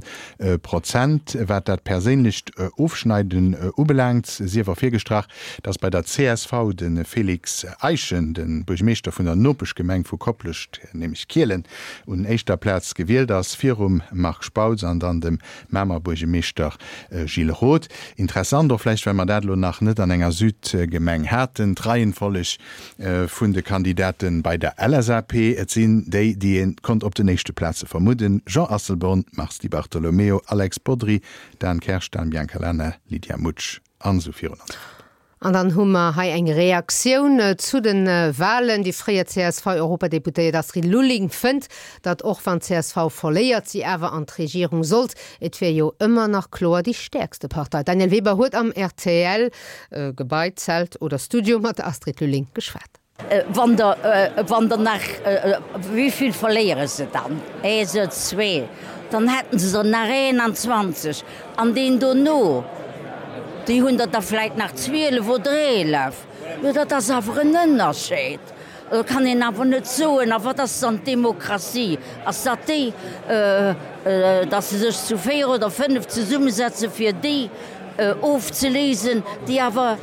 Prozent. Wat dat perséinlecht Ofschneiden ubelaangt, sief ervirgestrach, dass bei der csv de Félix Eischen, de Buergmeeschter vun der Nopeschgemeng vu Koplescht, nämlech Kielen, un éischter Plaz gewielt ass, virum Marc Spautz an dann dem Mamer Buergemeeschter Gilles Roth. Interessant och vläicht, well mer dat elo nach net an enger Südgemeng haten, d'Reihenfolleg vun de Kandidate bei der LSAP. Et sinn déi, déi ee konnt op den éischte Plaze vermudden, Jean Asselborn, Mars Di Bartolomeo, Alex Bodry, Dan Kersch, Dan Biancalana, Lydia Mutsch. An esou virun an esou fort. An dann hu mer hei eng Reaktioun zu de Wahlen. Déi fréier CSV-Europadeputéiert Astrid Lulling fënnt, datt och wann d'CSV verléiert, si awer an d'Regierung sollt. Et wier jo ëmmer nach kloer déi stäerkste Partei. D'Danièle Weber huet am RTL-Gebai, Zelt oder Studio mat der Astrid Lulling geschwat. Wann der, wann der nach, wéivill verléiere se dann? Ee Sëtz, zwee, dann hätten se der nach 21. An deen dono, déi hunn der da vläit nach 12 oder 11. Jo, dat ass awer en Ënnerscheed. Do kann een awer net soen, a wat ass dann d'Demokratie? Ass dat déi, datt se sech zu 4 oder 5 zesummesetze fir déi ofzeléisen, déi awer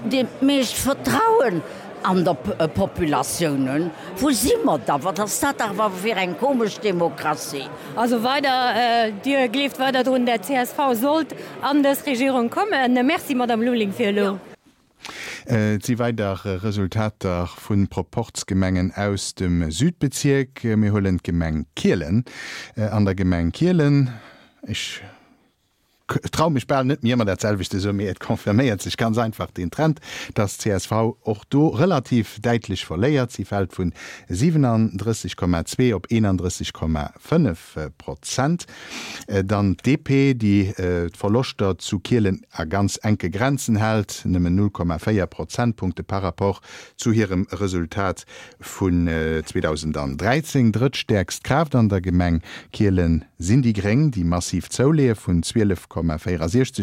dat meescht Vertrauen an der Populatioun hunn? Wou si mer da? Wat ass dat awer fir eng komesch Demokratie? Also weider, Dir gleeft weider drun, dat csv sollt an dës Regierung kommen. Merci, Madame Lulling, fir elo. Et si weider Resultater vu Proporzgemengen aus dem Südbezierk. Mir huelen d'Gemeng Kielen. An der Gemeng Kielen, ech trau mech bal net méi ëmmer dat selwecht ze soen, mee et confirméiert sech ganz einfach deen Trend, dass csv och do relativ däitlech verléiert. Si fält vun 37,2 op 31,5. Prozent. Dann d'DP, déi d'Verloschter zu Kielen a ganz enke Grenzen hält, nëmmen 0,4 Prozentpunkte par rapport zu hirem Resultat vun 2013. Drëttstäerkst Kraaft an der Gemeng Kielen sinn déi Gréng, déi massiv zouleeë vun 12,64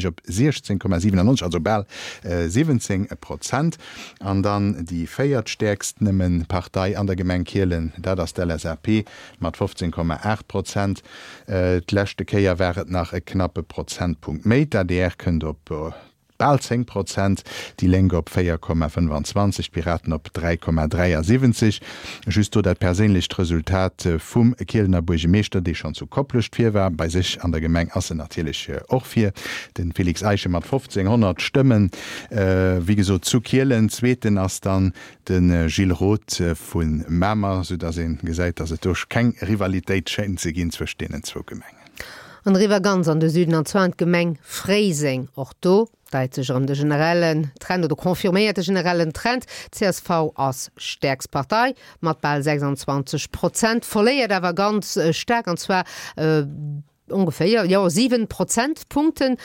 op 16,97, also bal 17 Prozent. An dann déi véiertstäerkst nëmme Partei an der Gemeng Kielen, dat ass d'LSAP Mat 15,8 Prozent. D'leschte Kéier war et nach e knappe Prozentpunkt méi. D'adr kënnt op bal 10 Prozent, déi Lénk op 4,25, d'Piraten op 3,73. Just do dat perséinlecht Resultat vum Kielener Buergemeeschter, dee schonn zu Koplescht vir war. Bei sech an der Gemeng ass en natierlech och vir, de Félix Eischen mat 1.500 Stëmmen, wéi gesot zu Kielen. Zweeten ass dann De Gilles Roth vu Mamer, sou datt ee gesäit, datt et do keng Rivalitéit schéint ze ginn zwëscht deenen zwou Gemengen. An eriwwer ganz an de Süden, an zwar an d'Gemeng Fréiseng. Och do deit sech erëm de generellen Trend oder confirméiert de generellen Trend, csv ass stäerkst Partei mat bal 26 Prozent, verléiert awer ganz staark, an zwar ongeféier, jo, 7 Prozentpunkten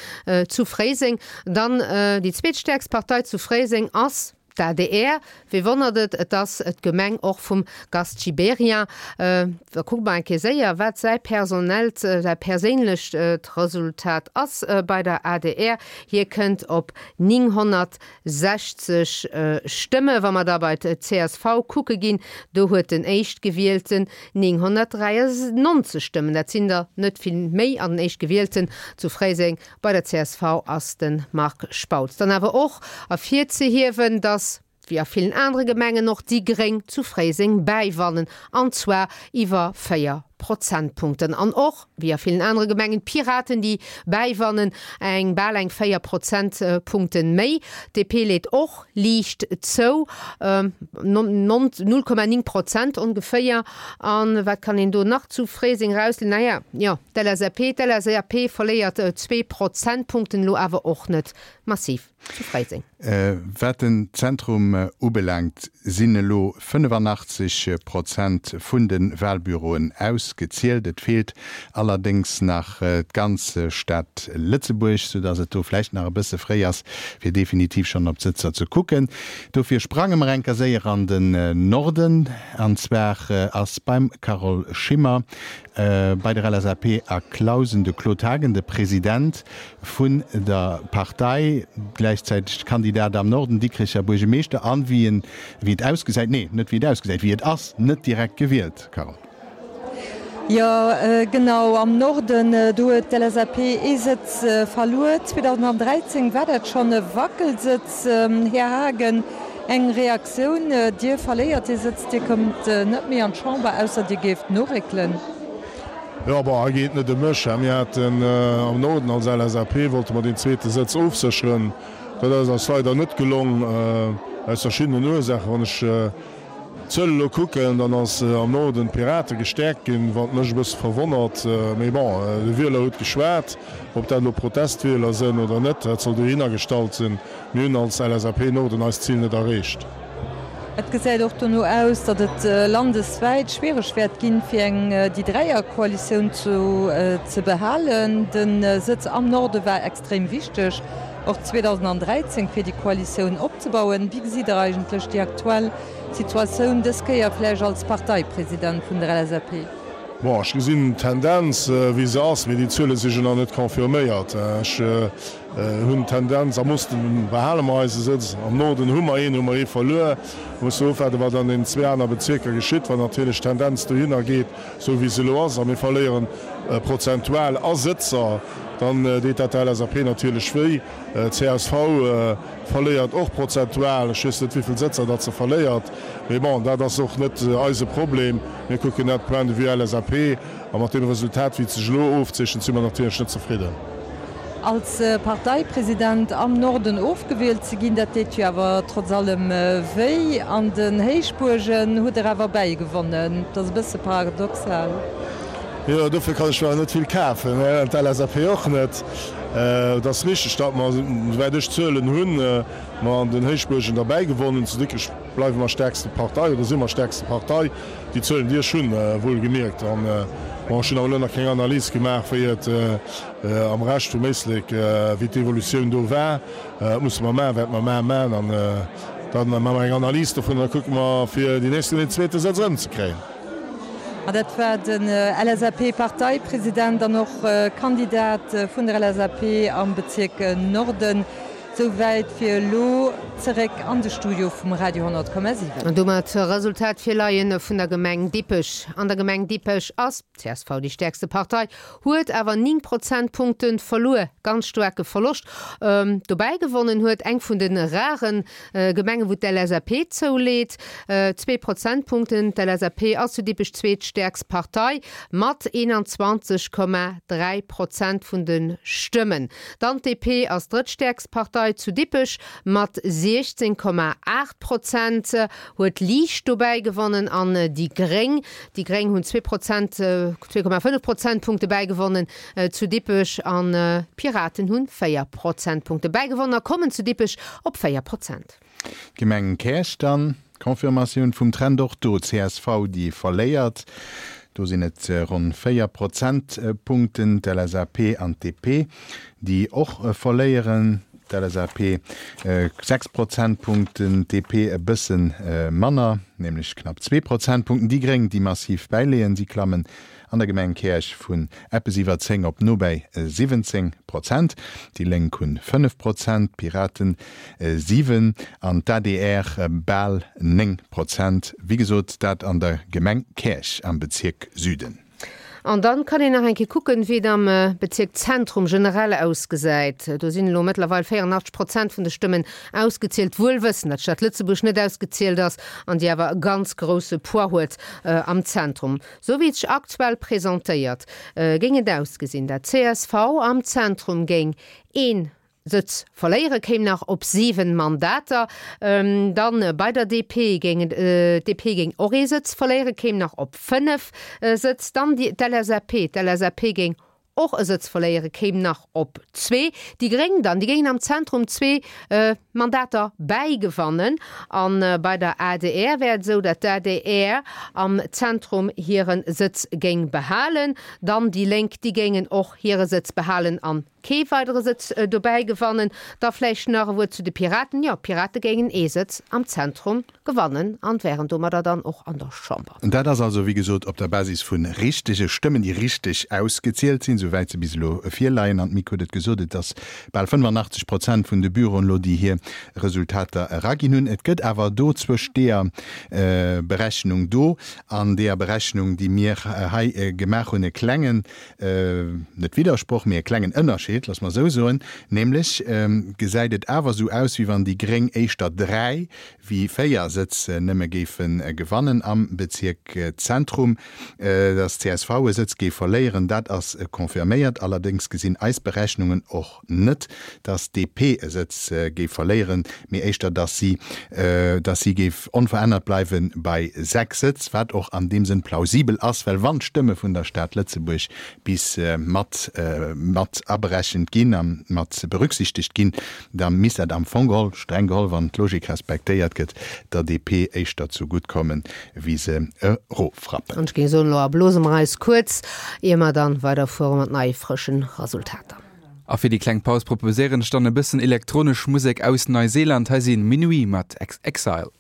zu Fréiseng. Dann déi zweetstäerkst Partei zu Fréiseng ass d'ADR. Wee wonnert et, et ass d'Gemeng och vum Gast Gibéryen. Da kucke mer eng Kéier séier, wat säi personellt, säi perséinlecht Resultat ass bei der adr. Hie kënnt op 960 Stëmme. Wa mer da bei d'CSV kucke ginn, do huet den Éischtgewielten 993 Stëmmen, dat sinn der net vill méi, an den Éischtgewielten zu Fréiseng bei der csv ass de Marc Spautz. Dann awer och ervirzehiewen, datt, wéi a villen anere Gemengen och, déi Gréng zu Fréiseng bäiwannen, an zwar iwwer 4 Prozentpunkten. An och, wéi a villen anere Gemengen, d'Piraten, déi bäiwannen, eng bal eng 4 Prozentpunkten méi. D'DP leet och liicht zou, 0,9 Prozent ongeféier. A wat kann een do nach zu Fréiseng erausliesen? Naja, jo, d'LSAP, d'LSAP verléiert zwee Prozentpunkten, elo awer och net massiv zu Fréiseng. Wat den Zentrum ubelaangt, sinn elo 85 Prozent vun de Walbüroen ausgezielt. Et feelt allerdéngs nach d'ganz Stad Lëtzebuerg, soudass et do vläicht nach e bësse fréi ass, fir definitiv schonn op d'Sëtzer ze kucken. Dofir sprange mer enker séier an den Norden, an zwar ass beim Carole Schimmer bei der LSAP a Clausen de Claude Haagen de President vun der Partei, gläichzäiteg Kandidat am Norden, Dikricher Buergemeeschter an, wéi en, wéi et ausgesäit, nee, net wéi et ausgesäit, wéi et ass, net direkt gewielt, Carole. Jo, genau, am Norden, do huet d'LSAP ee Sëtz verluer. 2013 war dat schonn e Wackelsëtz. Här Haagen, eng Reaktioun, Dir verléiert dee Sëtz, Dir kommt net méi an d'Chamber, ausser Dir géift noréckelen. Jo, bon, hei geet et net ëm mech. Mir haten am Norden als LSAP, wollte mer deen zweete Sëtz ofsécheren. Dat ass eis leider net gelong, aus verschiddenen Ursaachen. Wann ech d'Zuel elo kucken, dann ass am Norden d'Pirate gestäerkt ginn, wat mech e bësse verwonnert. Mee bon, de Wieler huet geschwat. Ob dat elo Protestwieler sënn oder net, dat soll dohinner gestallt sinn. Mir hunn als LSAP Norden eist Zil net erreecht. Et gesäit och dono aus, datt et landeswäit schwiereg wäert ginn, fir eng déi Dräierkoalitioun ze behalen. De Sëtz am Norde war extrem wichteg, och 2013, fir déi Koalitioun opzebauen. Wéi gesitt Der eigentlech déi aktuell Situatioun, dës Kéier vläicht als Parteipresident vun der LSAP? Bon, ech gesinn d'Tendenz, wéi se ass, mee déi Zuele si jo nach net confirméiert. Ech. Hunn d'Tendenz, am Osten behale mer eise Sëtz, am Norden hu mer een, hu mer ee verluer. Musse ofwaarden, wat an den zwee aner Bezierker geschitt. Wann natierlech d'Tendenz dohinner geet, esou wéi se elo ass, a mir verléieren prozentual a Sëtzer, dann deet dat der LSAP natierlech wéi. Csv verléiert och prozentual, ech weess net wéi vill Sëtzer datt se verléiert, mee bon, dat ass och net eise Problem. Mir kucken dat point de vue LSAP. A mat deem Resultat, wéi et sech elo ofzeechent, si mer natierlech net zefridden. Als Parteipresident am Norden ofgewielt ze ginn, dat deet jo awer trotz allem wéi. An den Héichbuergen hutt Der awer bäigewonnen. Dat ass e bësse paradoxal. Jo, dofir kann ech mer awer net vill kafen, an d'LSAP och net. Et ass richteg, datt mer, souwäit ech Zuelen hunn, mer an den Héichbuergen derbäi gewonnen hunn. Zu Dikrech bleiwe mer stäerkste Partei oder si mer stäerkste Partei. Déi Zuelen, déi ech hunn, wuelgemierkt. An, bon, ech hunn awer elo nach keng Analys gemaach, wéi et am Rescht vum Éislek, wéi d'Evolutioun do war. Dat musse mer maachen, wäerte mer mar maachen. An da maache mer eng Analys dovun an da kucke mer, fir déi nächst Kéier deen zweete Sëtz erëmzekréien. An dat war den LSAP-Parteipresident an och Kandidat vun der LSAP am Bezierk Norden. Souwäit fir elo. Zeréck an de Studio vum Radio 10,7. An domat Resultat virleien vun der Gemeng Dippech. An der Gemeng Dippech ass csv déi stäerkste Partei, huet awer 9 Prozentpunkte verluer, ganz staarke Verloscht. Dobäi gewonnen huet eng vun de rare Gemengen, wou d'LSAP zouleet, zwee Prozentpunkten. D'LSAP ass zu Dippech zweetstäerkst Partei mat 21,3 Prozent vun de Stëmmen. Dann d'DP ass drëttstäerkst Partei zu Dippech mat 16,8 Prozent, huet liicht dobäi gewonnen an déi Gréng, déi Gréng hunn zwee Prozent, 2,5 Prozentpunkte bäigewonnen zu Dippech an d'Piraten hunn 4 Prozentpunkte bäigewonnen a kommen zu Dippech op 4 Prozent. D'Gemeng Käerch dann, Confirmatioun vum Trend och do, csv déi verléiert, do sinn et ronn 4 Prozentpunkten, d'LSAP an d'DP déi och verléieren, d'LSAP 6 Prozentpunkten, d'DP e bësse manner, nämlech knapp zwee Prozentpunkten, déi Gréng déi massiv bäileeën, si klammen An der Gemeng Käerch vun eppes iwwer 10 op no bäi 17 Prozent. Déi Lénk hunn 5 Prozent, d'Piraten 7 an d'ADR bal 9 Prozent. Wéi gesot, dat an der Gemeng Käerch am Bezierk Süden. An dann kann een nach eng Kéier kucken, wéi et am Bezierk Zentrum generell ausgesäit. Do sinn elo mëttlerweil 84 Prozent vun de Stëmmen ausgezielt, wuel wëssend, datt d'Stad Lëtzebuerg net ausgezielt ass an déi awer e ganz grousse Poids huet am Zentrum. Sou wéi et sech aktuell presentéiert, géing et ausgesinn, dat csv am Zentrum géing ee Sëtz verléieren, kéim nach op 7 Mandater. Dann bei der DP géing et, d'DP géing och ee Sëtz verléieren, kéim nach op 5 Sëtz. Dann d'LSAP, d'LSAP géing och e Sëtz verléieren, kéim nach op zwee. Déi Gréng dann, déi géingen am Zentrum zwee Mandater bäigewannen. A bei der adr wär et esou, datt d'ADR am Zentrum hire Sëtz géing behalen. Dann déi Lénk, déi géingen och hire Sëtz behalen an kee weidere Sëtz dobäi gewannen. Da vläicht nach e Wuert zu de Piraten. Jo, d'Pirate géingen ee Sëtz am Zentrum gewannen an wären domadder dann och an der Chamber. Dat ass also, wéi gesot, op der Basis vu richtege Stëmmen, déi richteg ausgezielt sinn, souwäit se bis elo virleien. An d'Mick huet et gesot, et ass bal 85 Prozent vun de Büroen elo, déi hir Resultater eraginn hunn. Et gëtt awer do zwëscht deeër Berechnung do an deeër Berechnung, déi mir hei gemaach hunn, e klengen, net Widdersproch, mee e klengen Ënnerscheed, loosse mer esou soen, nämlech gesäit et awer esou aus, wéi wann déi gréng éischter dräi wéi 4 Sëtz nëmme géife gewannen am Bezierk Zentrum. Datt csv e Sëtz géif verléieren, dat ass confirméiert. Allerdéngs gesinn eis Berechnungen och net, datt DP e Sëtz géif verléieren, mee éischter, datt si datt si géif onverännert bleiwe bei 6 Sëtz, wat och an deem Sënn plausibel ass, well wann d'Stëmme vun der Stad Lëtzebuerg bis mat mat aberechent ginn a mat berücksichtegt ginn, da misst dat am Fong geholl, streng geholl, wann d'Logik respektéiert gëtt, der DP éischter zu gutt kommen, wéi se eroffrappen. An ech géing soen, elo erblose mer eis kuerz, ier mer dann weiderfuere mat neie frëschen Resultater. A fir déi kleng Paus proposéieren ech dann e bëssen elektronesch Musek aus Neuseeland. Hei si Minuit mat Exile.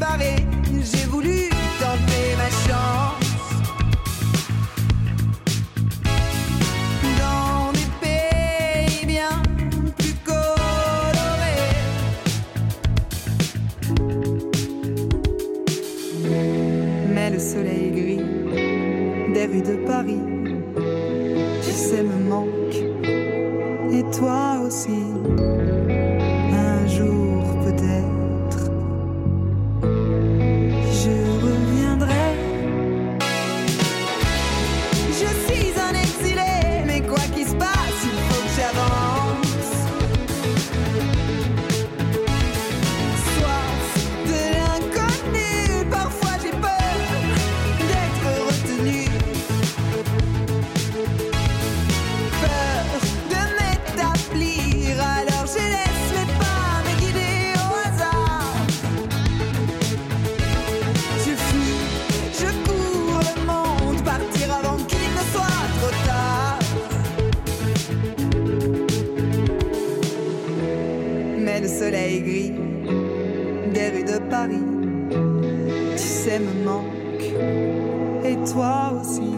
barré, j'ai voulu tenter ma chance. Dans des pays bien plus colorés. Mais le soleil gris des rues de Paris, tu sais me manque et toi aussi un jour peut-être je reviendrai. Je suis un exilé, mais quoi qu'il se passe, il faut que j'avance. Soif de l'inconnu, parfois j'ai peur d'être retenu. Peur de m'établir, alors je laisse mes pas me guider au hasard. Je fuis, je cours le monde, partir avant qu'il ne soit trop tard. Mais le soleil gris des rues de Paris, tu sais me manque et toi aussi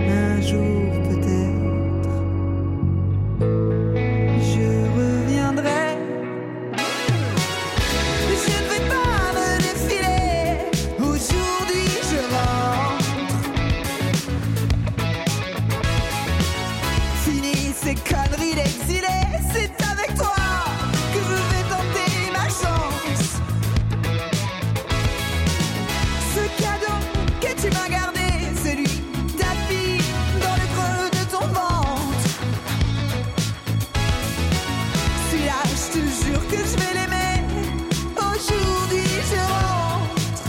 un jour peut-être je reviendrai. Je ne vais pas me défiler, aujourd'hui je rentre. Fini ces conneries d'exilé, c'est avec toi que je vais tenter ma chance. Ce cadeau que tu m'as gardé, celui tapis dans le creux de ton ventre. Celui-là, je te jure que je vais l'aimer. Aujourd'hui, je rentre.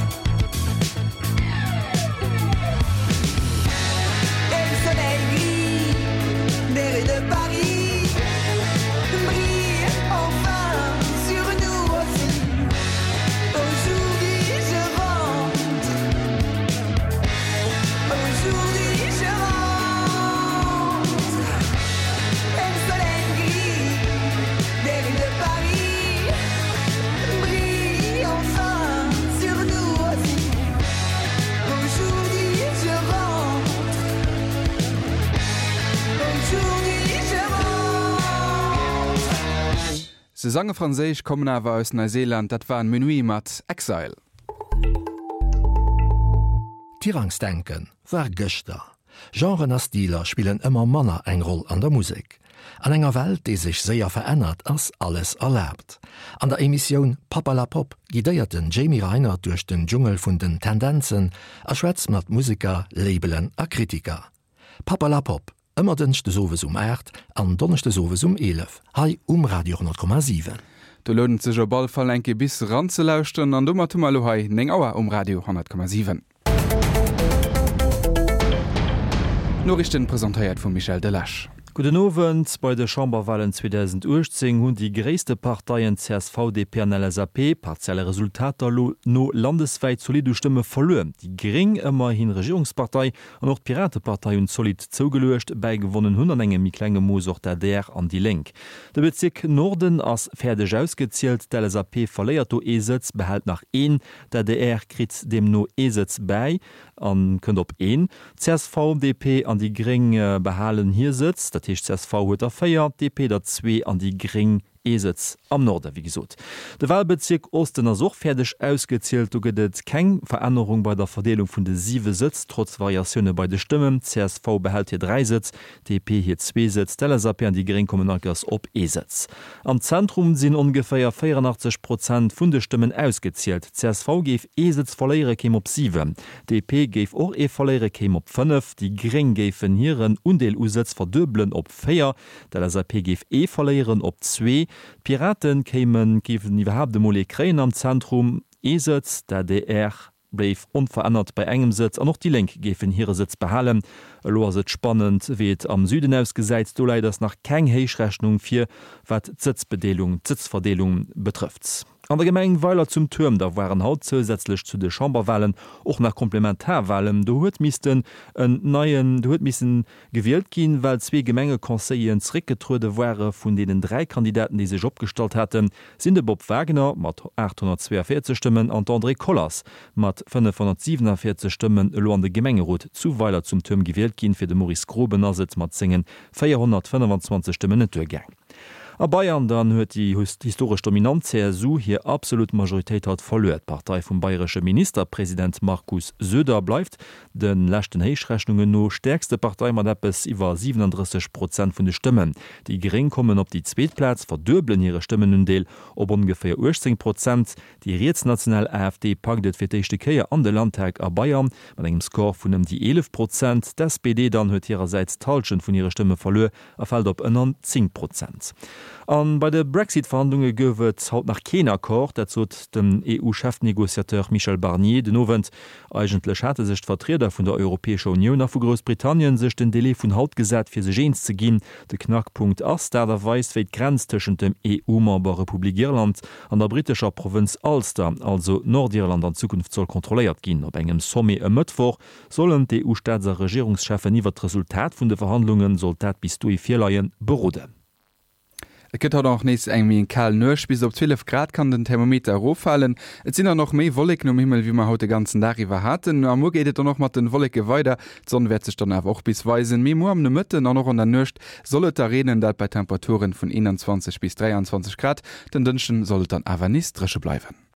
Et le soleil gris des rues de Paris brille enfin sur nous aussi. Aujourd'hui, je rentre. Aujourd'hui, je rentre. Et le soleil gris des rues de Paris brille enfin sur nous aussi. Aujourd'hui, je rentre. Aujourd'hui, je rentre. Se sange franséisch, kommen awer aus Neuseeland, dat waren Minuit mat Exile. Tirangsdenken war gëschter. Genren a Stiler spillen ëmmer manner eng Roll an der Musek. An enger Welt, déi sech séier verännert, ass alles erlaabt. An der Emissioun Papperlapopp guidéiert den Jamie Reinert duerch den Dschungel vun den Tendenzen a schwätzt mat Museker, Labelen a Kritiker. Papperlapopp, ëmmer dënschdes owes um 8 an donneschdes owes um 11 hei um Radio 10,7. Do lount et sech op all Fall eng Kéier bis eranzelauschteren. An domat hu mer elo hei 9 Auer um Radio 10,7. D'Noriichten presentéiert vum Michel Delage. Gudden Owend. Bei de Chamberwalen 2018 hunn déi gréisste Parteien csv, DP an LSAP, partielle Resultater lo no, landeswäit zolidd u Stëmme verluer. Déi Gréng, ëmmerhin Regierungspartei, an och d'Piratepartei hunn zolidd zougeluecht. Bäigewonnen hunn an engem méi klenge Mooss och d'ADR an déi Lénk. De Bezierk Norden ass fäerdeg ausgezielt. D'LSAP verléiert do ee Sëtz, behält nach een. D'adr kritt deemno ee Sëtz bäi a kënnt op een. Csv, DP an déi Gréng behalen hir Sëtz, dat heescht csv huet der 4, DP der zwee an déi Gréng ee Sëtz am Norde. Wéi gesot, de Walbezierk Osten ass och fäerdeg ausgezielt. Do gëtt et keng Verännerung bei der Verdeelung vun de siwe Sëtz, trotz Variatioune bei de Stëmmen. Csv behält hir 3 Sëtz, DP hir zwee Sëtz, d'LSAP an déi Gréng kommen allkers op ee Sëtz. Am Zentrum sinn ongeféier 84 Prozent vun de Stëmmen ausgezielt. Csv géif ee Sëtz verléiere, kéim op 7. DP géif och ee verléiere, kéim op 5. Déi Gréng géifen hiren Undeel u Sëtz verduebelen op 4. D'LSAP géif ee verléieren op zwee. D'Piraten kéimen, géifen iwwerhaapt emol ee kréien am Zentrum, ee Sëtz. D'adr bléif onverännert bei engem Sëtz an och déi Lénk géifen hire Sëtz behalen. Elo ass et spannend, wéi et am Süden ausgesäit. Do läit ass nach keng Héichrechnung vir, wat d'Sëtzbedeelung, d'Sëtzverdeelung betrëfft. An der Gemeng Weiler zum Tuerm da waren haut zousätzlech zu de Chamberwahlen och nach Komplementarwahlen. Do huet missten en neien, do huet missen gewielt ginn, well zwee Gemengeconseilleren zeréckgetruede ware. Vun deenen 3 Kandidaten, déi sech opgestallt haten, sinn de Bob Wagner mat 842 Stëmmen an d'Andrée Collers mat 547 Stëmmen elo an de Gemengerot zu Weiler zum Tuerm gewielt ginn. Fir de Maurice Groben ass et mat sengen 425 Stëmmen net duergaang. A Bayern dann huet déi historesch dominant CSU hir absolut Majoritéit haut verluer. D'Partei vum bayresche Ministerpresident Markus Söder bleift de leschten Héichrechnungen no stäerkste Partei mat eppes iwwer 37 Prozent vun de Stëmmen. Déi Gréng kommen op déi zweet Plaz, verduebelen hire Stëmmenundeel op ongeféier 18 Prozent. Déi rietsnational AfD packt et fir d'éischte Kéier an de Landtag a Bayern mat engem Score vun ëm déi 11 Prozent. D'SPD dann huet hirersäits d'Hallschent vun hire Stëmme verluer a fält op ënner 10 Prozent. A bei de Brexit-Verhandlunge gouf et haut nach keen Accord, dat sot den EU-Chefnegociateur Michel Barnier den Owend. Eigentlech hate sech d'Vertrieder vun der Europäescher Unioun a vu Groussbritannien sech den Delai vun haut gesat, fir sech eens ze ginn. De Knackpunkt ass d'Aart a Weis, wéi d'Grenz tëschent dem EU-Member Republik Irland an der brittescher Provënz Ulster, also Nordirland, an Zukunft soll kontrolléiert ginn. Op engem Sommet e Mëttwoch Sollen d'EU-Staats a Regierungscheffen iwwert d'Resultat vun de Verhandlungen, sollt dat bis dohi virleien, beroden. Et gëtt haut och nees eng méi kal Nuecht, bis op 12 Grad kann den Thermometer eroffalen. Et sinn dann och méi Wolleken um Himmel, wéi mer haut de ganzen Dag iwwer haten. A muer geet et dann och mat den Wolleke weider, d'Sonn wäert sech dann awer och bis weisen. Mee muer am Nomëtten an och an der Nuecht soll et da reenen, dat bei Temperaturen vun 21 bis 23 Grad. Den Dënschden soll et dann awer nees dréche bleiwen.